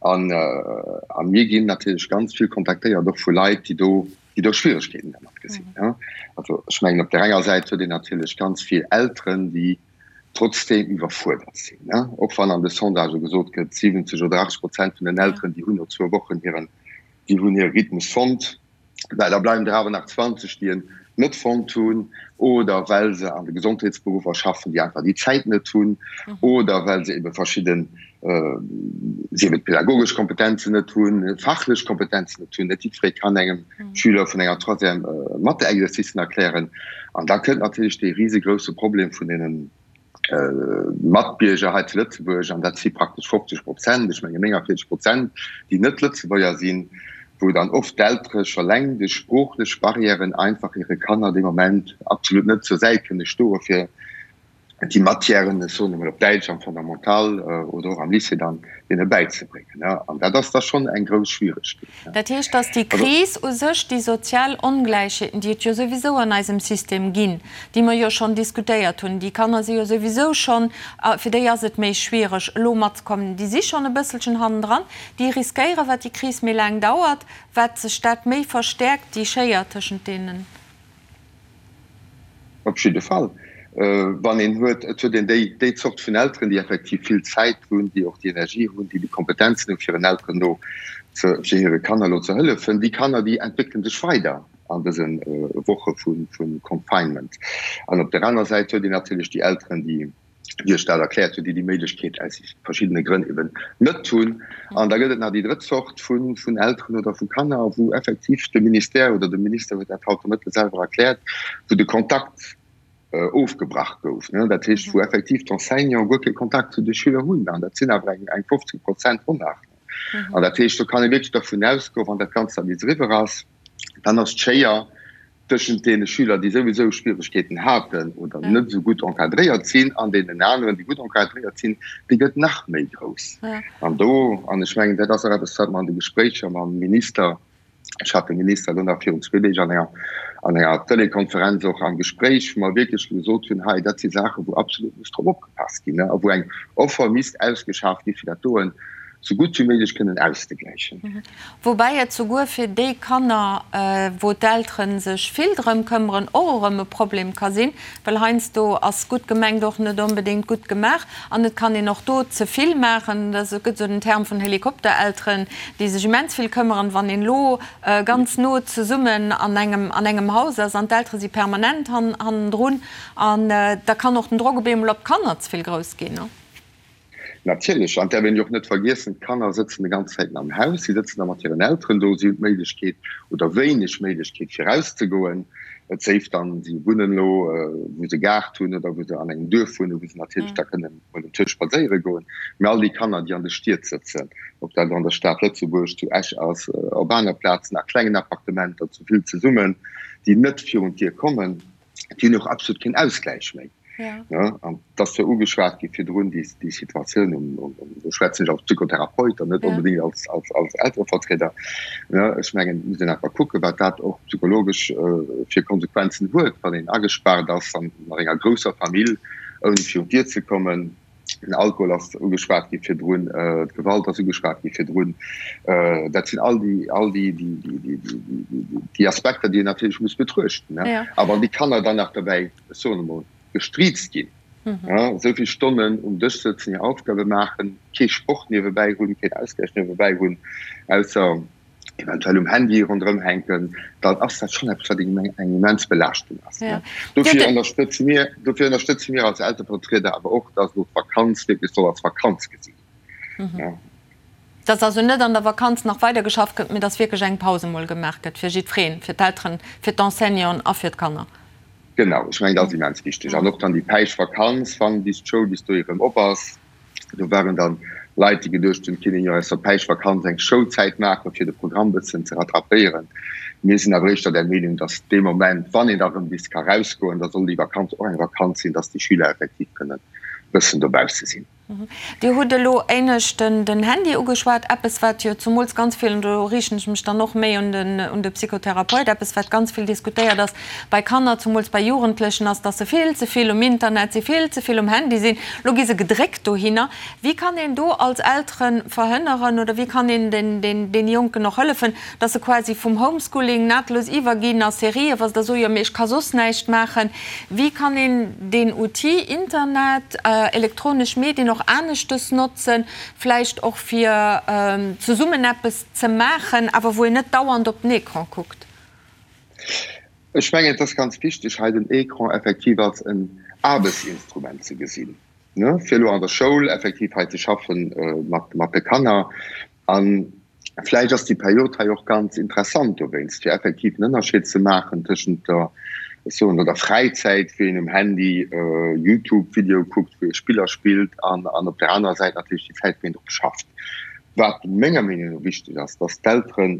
An a mir ginn natierlech ganz vill kontaktéiert och vu Leit, déi do, déi do Schwieregkeeten dermat gesinn. Also ech mengen, op där enger Säit huet een natierlech ganz vill Elteren, déi trotzdeem iwwerfuerdert sinn, och wann an de Sondagë gesot gëtt, 70 oder 80 Prozent vun den Elteren, déi hunn no zwou Wochen hiren, déi hunn hire Rhythmus fonnt. Well da bleiwen der awer nach 20, déi en net fonnt hunn oder well se an de Gesondheetsberuffer schaffen, déi einfach déi Zäit net hunn oder well se ebe verschidden, sief et pädagogesch Kompetenzen net hunn, fachlech Kompetenzen net hunn. Net jiddweree kann engem Schüler vun enger Troisième Mathe-Exercicen erklären. An da kënnt natierlech dee risegrousse Problem vun deenen, Matbierger hei zu Lëtzebuerg, an dat si praktesch 50 Prozent, ech menge 49 Prozent, déi net Lëtzebuerger sinn, wou dann oft d'Eltere scho leng duerch sproochlech Barrièren einfach hire Kanner dee Moment absolut net zur Säit kënne stoe fir déi Matièren, ech soen emol op Däitsch, am Fondamental oder och am Lycée dann deene bäizebréngen. An dat ass da schonn eng grouss Schwieregkeet. Dat heescht, datt déi Kris u sech déi sozial Ongläichheeten, déi et jo souwisou an eisem System ginn, déi mer jo schonn diskutéiert hunn, déi Kanner si jo souwisou schonn, fir déi ass et méi schwiereg elo matzekommen, déi si schonn e bësselchen hannendran, déi riskéieren, wat déi Kris méi laang dauert, wat sech dat méi verstäerkt, déi Schéier tëschent deenen. Op jidde Fall. Wann een huet, et huet een déi, déi Zort vun Elteren, déi effektiv vill Zäit hunn, déi och déi Energie hunn, déi déi Kompetenzen hunn, fir hiren Elteren elo ze, fir hire Kanner elo ze hëllefen, déi Kanner, déi entwéckele sech weider an dëse Woche vu Confinement. An op der aner Säit huet een natierlech déi Elteren, déi, wéi ech dat erkläert hunn, déi déi Méiglechkeet aus verschiddene Grënn eben net hunn. An da gëtt et nach déi drëtt Zort vun Elteren oder vu Kanner, wou effektiv de Ministère oder de Minister huet dat haut de Mëtte selwer erkläert, wou de Kontakt ofgebrach gouf. Dat heescht, wou effektiv d'Enseignanten guer kee Kontakt zu de Schüler hunn. An dat sinn awer eng 15 Prozent ronn nach. An dat heescht, do kann ee wierklech dervun ausgoen, wann dat Ganzt dann bis eriwwer ass. Dann ass d'Schéier tëschent deene Schüler, déi souwisou Schwieregkeeten haten oder net esou gutt encadréiert sinn, an deenen aneren, déi gutt encadréiert sinn, déi gëtt nach méi grouss. An do, an ech mengen, dat ass och eppes, wat mer an de Gespréicher mam Minister, ech hat de Minister elo nach virun zwee Deeg an enger, an enger Telekonferenz och am Gespréich, wou mer wierklech gesot hunn, hei, dat si Saachen, wou absolut muss drop opgepasst ginn a wou eng Offer misst ausgeschaaft gi fir dat doen esou gutt wéi méiglech kënnen auszegläichen. Woubäi et souguer fir déi Kanner, wou d'Eltere sech vill drëm këmmeren, och erëm e Problem ka sinn, well heiansdo ass gutt gemengt och net onbedéngt gutt gemaach an et kann een och do ze vill maachen. Et gëtt esou den Term vun Helikopterelteren, déi sech immens vill këmmeren. Wann een elo ganz no zesummen an engem an engem Haus ass an d'Eltere si permanent hannendrun, an da kann och den Drock op eemol op d'Kanner ze vill grouss ginn. Natierlech, an d'äerf een jo och net vergiessen, d'Kanner sëtzen de ganz Zäiten am Haus, si sëtzen da mat hiren Elteren do, si hunn d'Méiglechkeet oder wéineg Méiglechkeet fir erauszegoen, et séif dann, si wunnen elo wou se Gaart hunn oder wou se an engem Duerf wunnen, wou se natierlech da kënnen mol um Tisch spadséiere goen. Mä all déi Kanner, déi an de Stied sëtzen, ob dat elo an der Stad Lëtzebuerg, zu Esch ass, op aner Plazen, a klengen Appartementer, zu vill zesummen, déi net virun d'Dier kommen, déi hunn och absolut keen Ausgläich méi. Ja. An dat ass jo ugeschwat gi virdrun, déi, déi Situatioun um, um, um, do schwätzen ech als Psychotherapeut an net ja. onbedingt als, als, als Elterevertrieder. Ja, ech mengen, muss een einfach kucken, wat dat och psychologesch äh, fir Konsequenzen huet, wann een agespaart ass an enger grousser Famill, ouni virun d'Dier ze kommen. Den Alkohol ass ugeschwat gi virdrun, d'Gewalt ass ugeschwat gi virdrun. Dat sinn all déi, all déi, déi, déi, déi, déi, déi Aspekter, déi een natierlech muss betruechten. A wann déi Kanner dann nach dobäi, ech soen emol, gestriizt ginn, esou vill Stonnen um Dësch sëtzen, hir Aufgabe maachen, kee Sport niewebäi hunn, keen Ausgläich niewebäi hunn, ausser, eventuell um Handy ronderëm hänken, dann ass dat schonn eppes, wat eng immens Belaaschtung ass. Dofir ënnerstëtze mir, dofir ënnerstëtze mir als Elterevertrieder awer och, dass elo d'Vakanz wierklech soll als Vakanz gesi ginn. Dass also net an der Vakanz nach weider geschafft gëtt, mee dass wierklech eng Paus emol gemaach gëtt fir jiddwereen, fir d'Elteren, fir d'Enseignanten a fir d'Kanner. Genau, ech mengen, dat ass immens wichteg. An och dann déi Päischtvakanz, wann bis d'Schoul bis dohi erëm op ass, Do waren dann Leit, déi geduecht hunn, et kinnt een jo aus der Päischtvakanz eng Schoulzäit maachen, fir de Programm bëssen ze rattrapéieren. Mir sinn awer éischter der Meenung, datt dee Moment, wann een da rëm bis ka rausgoen, da soll déi Vakanz och eng Vakanz sinn, datt déi Schüler effektiv kënnen bëssen dobausse sinn. Dir hutt elo éinescht den Handy ugeschwat, eppes wat jo zumools ganz vill, an do riichten ech mech dann och méi un de Psychotherapeut, eppes wat ganz vill diskutéiert ass, Bei Kanner, zumools bei Jugendlechen, ass, dass se vill ze vill um Internet sinn, vill ze vill um Handy sinn. Lo gi se gedréckt dohinner. Wéi kann een do als Eltere verhënneren oder wéi kann een den Jonken och hëllefen, dass se quasi vum Homeschooling nahtlos iwwerginn a Serien, wa se da soen, jo mee ech ka soss näischt maachen. Wéi kann een deen Outil Internet, elektronesch Medien och aneschtes notzen, vläicht och fir zesummen eppes ze maachen, awer wou een net dauernd op den Ecran kuckt? Ech mengen, et ass ganz wichteg, hei den Écran effektiv als en Aarbechtsinstrument ze gesinn, fir elo an der Schoul effektiv hei ze schaffe mat de Kanner. A vläicht ass déi Period hei och ganz interessant dowéinst, fir effektiv en Ënnerscheed ze maachen tëschent der, ech soen elo, der Fräizäit, wou een um Handy YouTube-Videoe kuckt, wou ee Spiller spillt, an op där anerer Säit natierlech déi Zäit, wou een drop schafft. Wat menger Meenung no wichteg ass, dass d'Elteren,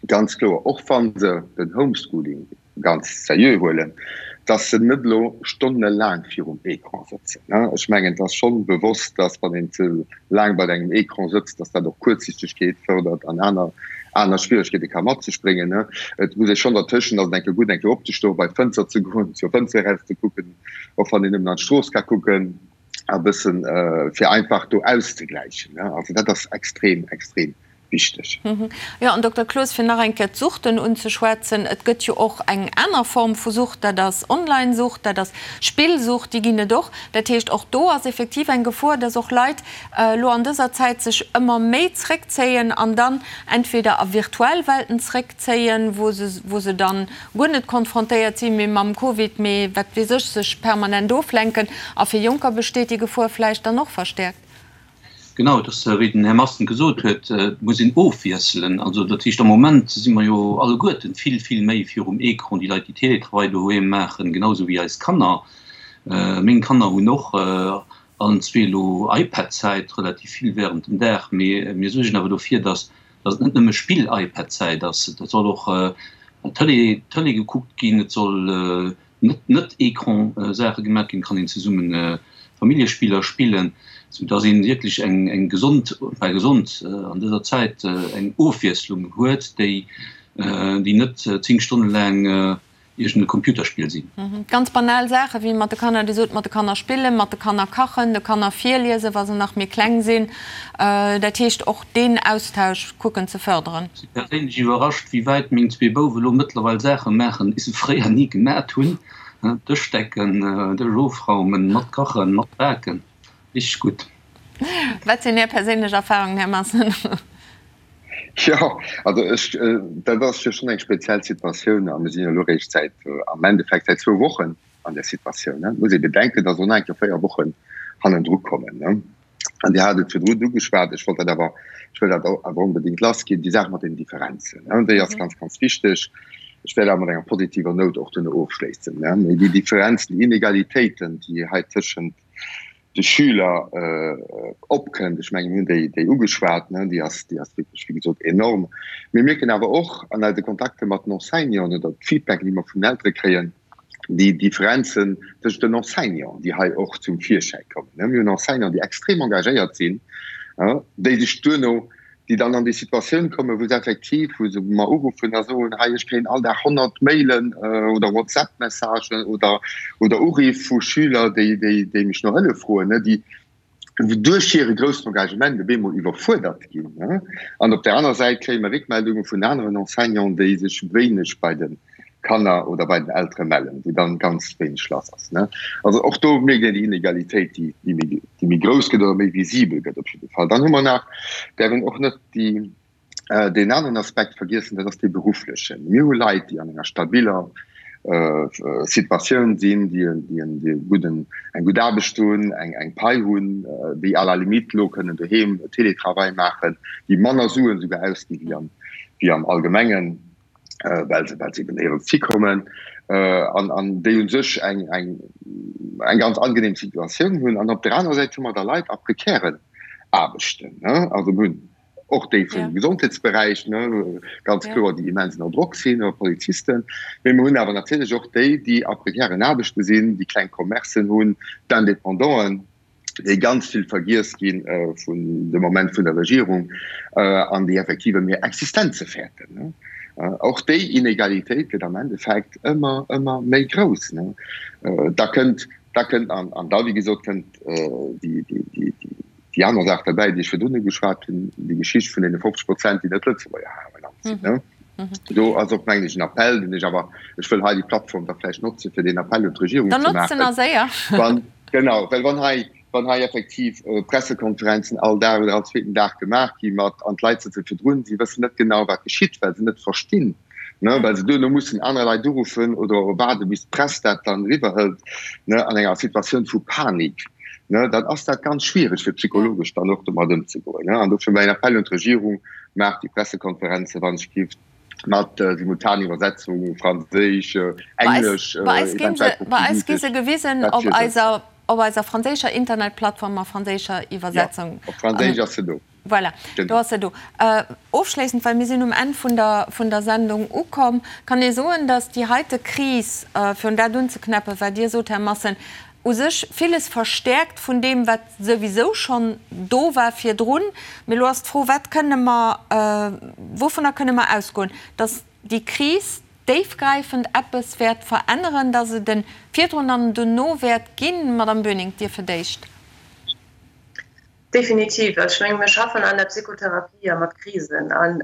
ganz kloer, och wa se den Homeschooling ganz seriö huelen, dass se net elo stonnelaang virum Ecran sëtzen. Ech mengen, et ass schonn bewosst, dass wann een ze laang bei engem Ecran sëtzt, dass dat och Kuerzsichtegkeet fërdert an aner aner Schwieregkeete ka mat sech bréngen. Et muss ee schonn dertëschent, ass et eng Kéier gutt, eng Kéier opzestoen, bei d'Fënster ze goen, zur Fënster eraus ze kucken, och wann een nëmmen an d'Strooss ka kucken, e bëssen, fir einfach do auszegläichen. Also dat ass extrem, extrem wichteg. Jo, an Dokter Cloos, fir nach eng Kéier d'Suchten unzeschwätzen, Et gëtt jo och eng aner Form vu Sucht, dat ass Online-Sucht, dat ass Spillsucht, déi ginn et och. Dat heescht, och do ass effektiv eng Gefor, dass och Leit elo an dëser Zäit sech ëmmer méi zréckzéien an dann entweder a virtuell Welten zréckzéien, wou se, wou se dann guer net konfrontéiert si méi mam Covid, mee wat weess ech, sech permanent oflenken. A fir Jonker besteet déi Gefor vläicht dann och verstäerkt. Genau, et ass wéi den Här Masten gesot huet, et muss een ofwiesselen. Also dat heescht, am Moment si mer jo alleguerten vill, vill méi virum Ecran, déi Leit, déi Télétravail doheem maachen, genau esou wéi eis Kanner. Meng Kanner hunn och allen zwee elo iPad-Zäit, relativ vill während dem Dag, mee mir suergen awer dofir, dass. Datt et net nëmme Spill-iPad-Zäit ass, et soll och Tëlee, Tëlee gekuckt ginn, et soll net net-Ecran-Saache gemaach ginn, et kann een zesumme Familljespiller spillen, sou datt een wierklech eng eng gesond, enfin gesond an dëser Zäit, eng Ofwiesslung huet, déi déi net 10 Stonne laang iergend e Computerspill sinn. Ganz banal Saache wéi mat de Kanner, Dir sot, mat de Kanner spillen, mat de Kanner kachen, de Kanner virliesen, wa se nach méi kleng sinn. Dat heescht och deen Austausch kucken ze fërderen. Ech si perséinlech iwwerrascht, wéi wäit meng zwee Bouwe lo mëttlerweil Saache maachen, déi se fréier ni gemat hunn, Dësch decken, Dësch ofraumen, mat kachen, mat baken. Richteg gutt. Wat sinn Är perséinlech Erfahrungen, Här Massen? Jo, also ech, dat ass jo schonn eng speziell Situatioun a mir sinn jo elo eréischt säit, am Endeffekt säit zwou Wochen an där Situatioun. Et muss ee bedenken, datt och nach eng Kéier 4 Wochen hannendru kommen. An Dir hat et virdrun ugeschwat, ech wollt dat awer, ech wëll dat awer onbedéngt lassginn, déi Saach mat den Differenzen, déi ass ganz, ganz wichteg. Ech wäert awer mat enger positiver Nout och duerno ofschléissen. Mee déi Differenzen, déi Inegalitéiten, déi hei tëschent de Schüler opkënnt, ech mengen, mir hunn déi, déi ugeschwat, ne, déi ass, déi ass wierklech, wéi gesot, enorm. Mir mierken awer och an eise Kontakte mat den Enseignanten oder d'Feedback, déi mer vun den Eltere kréien, déi Differenzen tëschent den Enseignanten, déi hei och zum Virschäi kommen. Mir hunn Enseignanten, déi extrem engagéiert sinn, déi sech duerno déi dann an déi Situatioun kommen, wou se effektiv, wou se mer uruffen a soen, hei ech kréien all Dag 100 Mailen oder WhatsApp-Messagen oder, oder Uriff vu Schüler, déi, déi, déi mech no Hëllef froen, déi duerch hire groussen Engagement op eemol iwwerfuerdert ginn. An op där aner Säit kréie mer Réckmeldunge vun aneren Enseignanten, déi sech wéineg bei de Kanner oder bei den Eltere mellen, wou dann ganz wéineg lass ass. Also och do mierkt een déi Inegalitéit, déi, déi méi, déi méi grouss gëtt oder méi visibel gëtt op jidde Fall. Dann hu mer nach, däerf een och net déi, deen aneren Aspekt vergiessen, dat ass dee berufflechen. Mir hu Leit, déi an enger stabiller Situatioun sinn, déi en, déi en, déi e gudden, eng gutt Aarbecht hunn, eng, eng Pai hunn, déi à la limite elo kënnen doheem Télétravail maachen, déi manner Suen esouguer ausgi wéi am, wéi am Allgemengen. well se well se eben néierens hikommen an an déi un sech eng eng eng ganz angenehm Situatioun hunn. An op der anerer Säit hu mer da Leit a prekären Aarbechten, ne, also mir hunn och déi vum Gesondheetsberäich, ne, ganz kloer, déi immens ënner Drock sinn, oder Polizisten, mee mir hunn awer natierlech och déi, déi a prekären Aarbechte sinn, déi kleng Commercen hunn, d'Independanten. déi ganz vill vergiess gi vun de Moment vun der Regierung an déi effektiv ëm hir Existenze fäerten. Och déi Inegalitéit gëtt am Endeffekt ëmmer, ëmmer méi grouss. Da kënnt, da kënnt an, an da wéi gesot kënnt déi, déi, déi, déi aner Saach derbäi, déi ech virdrun ugeschwat hunn, déi Geschicht vun deene 50 Prozent, déi net Lëtzebuerger hei am Land sinn. Do ass och, mengen ech, en Appell, deen ech awer, ech wëll hei déi Plattform da vläicht notze fir deen Appell un d'Regierung ze maachen. Dann notz en a séier. Wann, genau, well wann hei, wann hei effektiv Pressekonferenzen all Dag oder all zweeten Dag gemaach gi mat, an d'Leit sëtze virdrun, si wëssen net genau, wat geschitt, well se net verstinn, ne, well se duerno mussen aner Leit uruffen oder waarde bis d'Press dat dann eriwwerhëlt, ne, an enger Situatioun vu Panik, ne, dann ass dat ganz schwiereg fir psychologesch dann och domat ëmzegoen, ne. An dofir mäin Appell un d'Regierung, Maacht déi Pressekonferenze wann ech giff mat Simultaniwwersetzung, Franséisch, Englesch, Bei eis ginn se, bei eis gi se gewisen op eiser, op eiser franséischer Internetplattform a franséischer Iwwersetzung. Jo, op Franséisch ass se do. Voilà, do ass se do. Ofschléissend, well mir sinn um Enn vun der, vun der Sendung ukomm, kann ee soen, datt déi heite Kris, fir un dat unzeknäppen, wat Dir sot, Här Massen, u sech villes verstäerkt vun deem, wat souwisou schonn do war virdrun. Mee elo ass d'Fro, Wat kënne mer, wouvunner kënne mer ausgoen, datt déi Kris déifgräifend eppes wäert veränneren, datt et e virdrun an en dono wäert ginn? Madamm Böning, Dir fir d'éischt. Definitiv. Also ech menge mir schaffen an der Psychotherapie ja mat Krisen an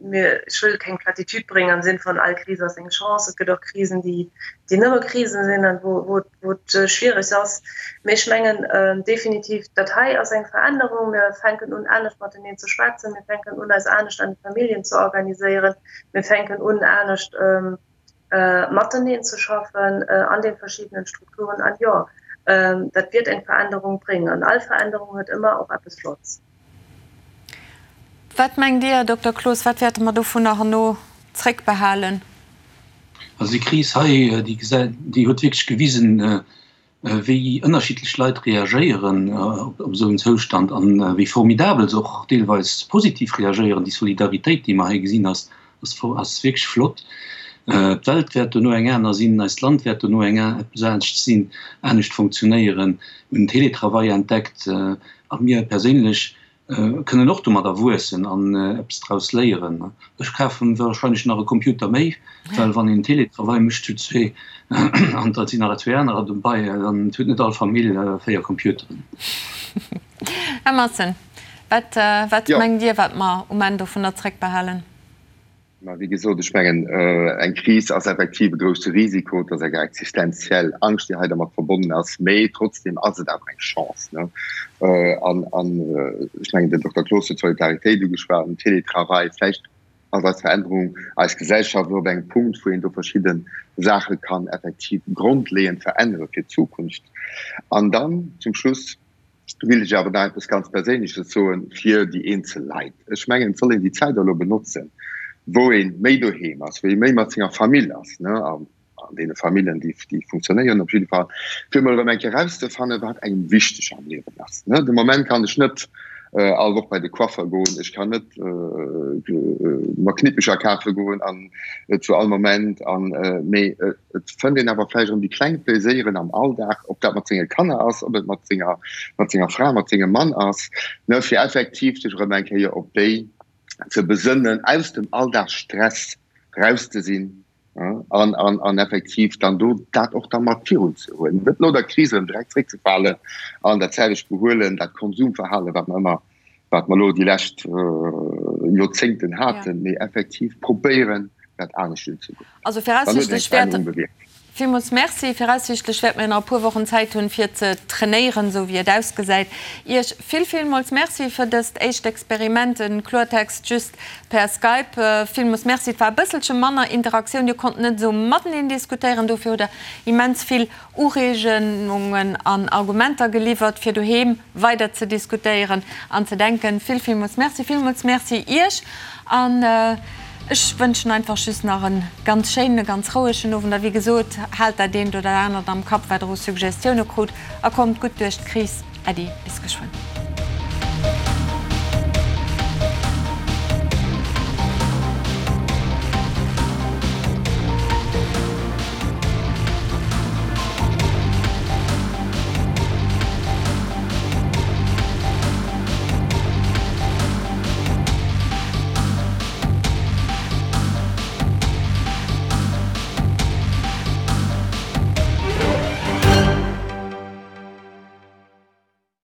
Mir, ech wëll keng Platitude bréngen am Sinn vun all Kris ass eng Chance. Et gëtt och Krisen, déi, déi nëmme Krisen sinn an wou, wou, wou et schwierig ass. Mee ech mengen definitiv, dat hei ass eng Verännerung. Mir fänken un, anescht mateneen ze schwätzen. Mir fänken un, eis anescht an de Familljen ze organiséieren. Mir fänken un, anescht mateneen ze schaffen an de verschiddenen Strukturen. An jo, dat wäert eng Verännerung bréngen. An all Verännerung huet ëmmer och eppes Flotts. Wat mengt Dir, Här Dokter Cloos, wat wäerte mer dovunner herno zréckbehalen? Also déi Kris hei, déi gesäit, déi huet wierklech gewisen, wéi ënnerschiddlech Leit reagéieren op esou en Zoustand an wéi formidabel se och deelweis positiv reagéieren. Déi Solidaritéit, déi mer hei gesinn, ass ass wierklech flott. D'Welt wäert dono eng aner sinn, eist Land wäert dono eng eppes anescht sinn, anescht funktionéieren. Mir hunn Teletravail entdeckt a mir perséinlech kënnen och domadder wuessen an eppes draus léieren. Ech kafen wahrscheinlech nach e Computer méi, well wann een Teletravail mécht zu zwee an da sinn nach zwee anerer dobei, dann huet net all Famill 4 Computeren. Här Matsen, wat wat mengt Dir, wat mer um Enn dovunner zréckbehalen? Mä wéi gesot, ech mengen, eng Kris ass effektiv e grousse Risiko, et ass eng existenziell Angscht, déi hei dermat verbonnen ass, mä trotzdem ass et awer eng Chance. An ech mengen, den Dokter Cloos huet d'Solidaritéit ugeschwat, den Télétravail, vläicht ass eis Verännerung, eis Gesellschaft elo op engem Punkt, wou een do verschidde Saache kann effektiv grondleeënd verännere fir d'Zukunft. An dann zum Schluss, Will ech awer nach eppes ganz Perséinleches soen fir déi eenzel Leit. Ech mengen, et soll een déi Zäit elo benotzen, wou ee méi doheem ass, wou ee méi mat senger Famill ass, ne, an deene Famillen, déi, déi funktionéieren op jidde Fall, fir emol erëm eng Kéier erauszefannen, wat engem wichteg am Liewen ass, ne. De Moment kann ech net all Woch bei de Coiffer goen, ech kann net mer Knippecher kafe goen an zu all Moment an, mee Et fënnt een awer vläicht erëm déi kleng Plaiséieren am Alldag, ob dat mat senge Kanner ass, ob et mat senger, mat senger Fra, mat sengem Mann ass, ne, fir effektiv sech erëm eng Kéier op déi ze besënnen, aus dem Alldagsstress raus ze sinn an, an, an effektiv dann do dat och da mat virun ze huelen, net no der Kris erëm direkt zréckzefalen an dat selwecht Behuelen, dat Konsumverhalen, wat mer ëmmer wat mer elo déi lescht Joerzéngten haten, mee effektiv probéieren, dat anescht unzegoen. Also viraussiichtlech wäert. Villmools Merci. Viraussiichtlech wäerte mir nach e puer Wochen Zäit hunn, fir ze trainéieren, esou wéi et ausgesäit. Iech vill, villmools Merci fir dëst éischt Experiment, en Kloertext just per Skype. Villmools Merci. Et war e bësselche manner Interaktioun, Dir konnt net esou mateneen diskutéieren, dofir hutt Der immens vill Ureegungen an Argumenter geliwwert, fir doheem weider ze diskutéieren an ze denken. Vill, villmools Merci. Villmools Merci Iech an ech wënschen einfach just nach e ganz schéinen, e ganz rouegen Owend. A wéi gesot, haalt dat eent oder anert am Kapp, wat Der u Suggestioune krut a kommt gutt duerch d'Kris. Äddi, bis geschwënn.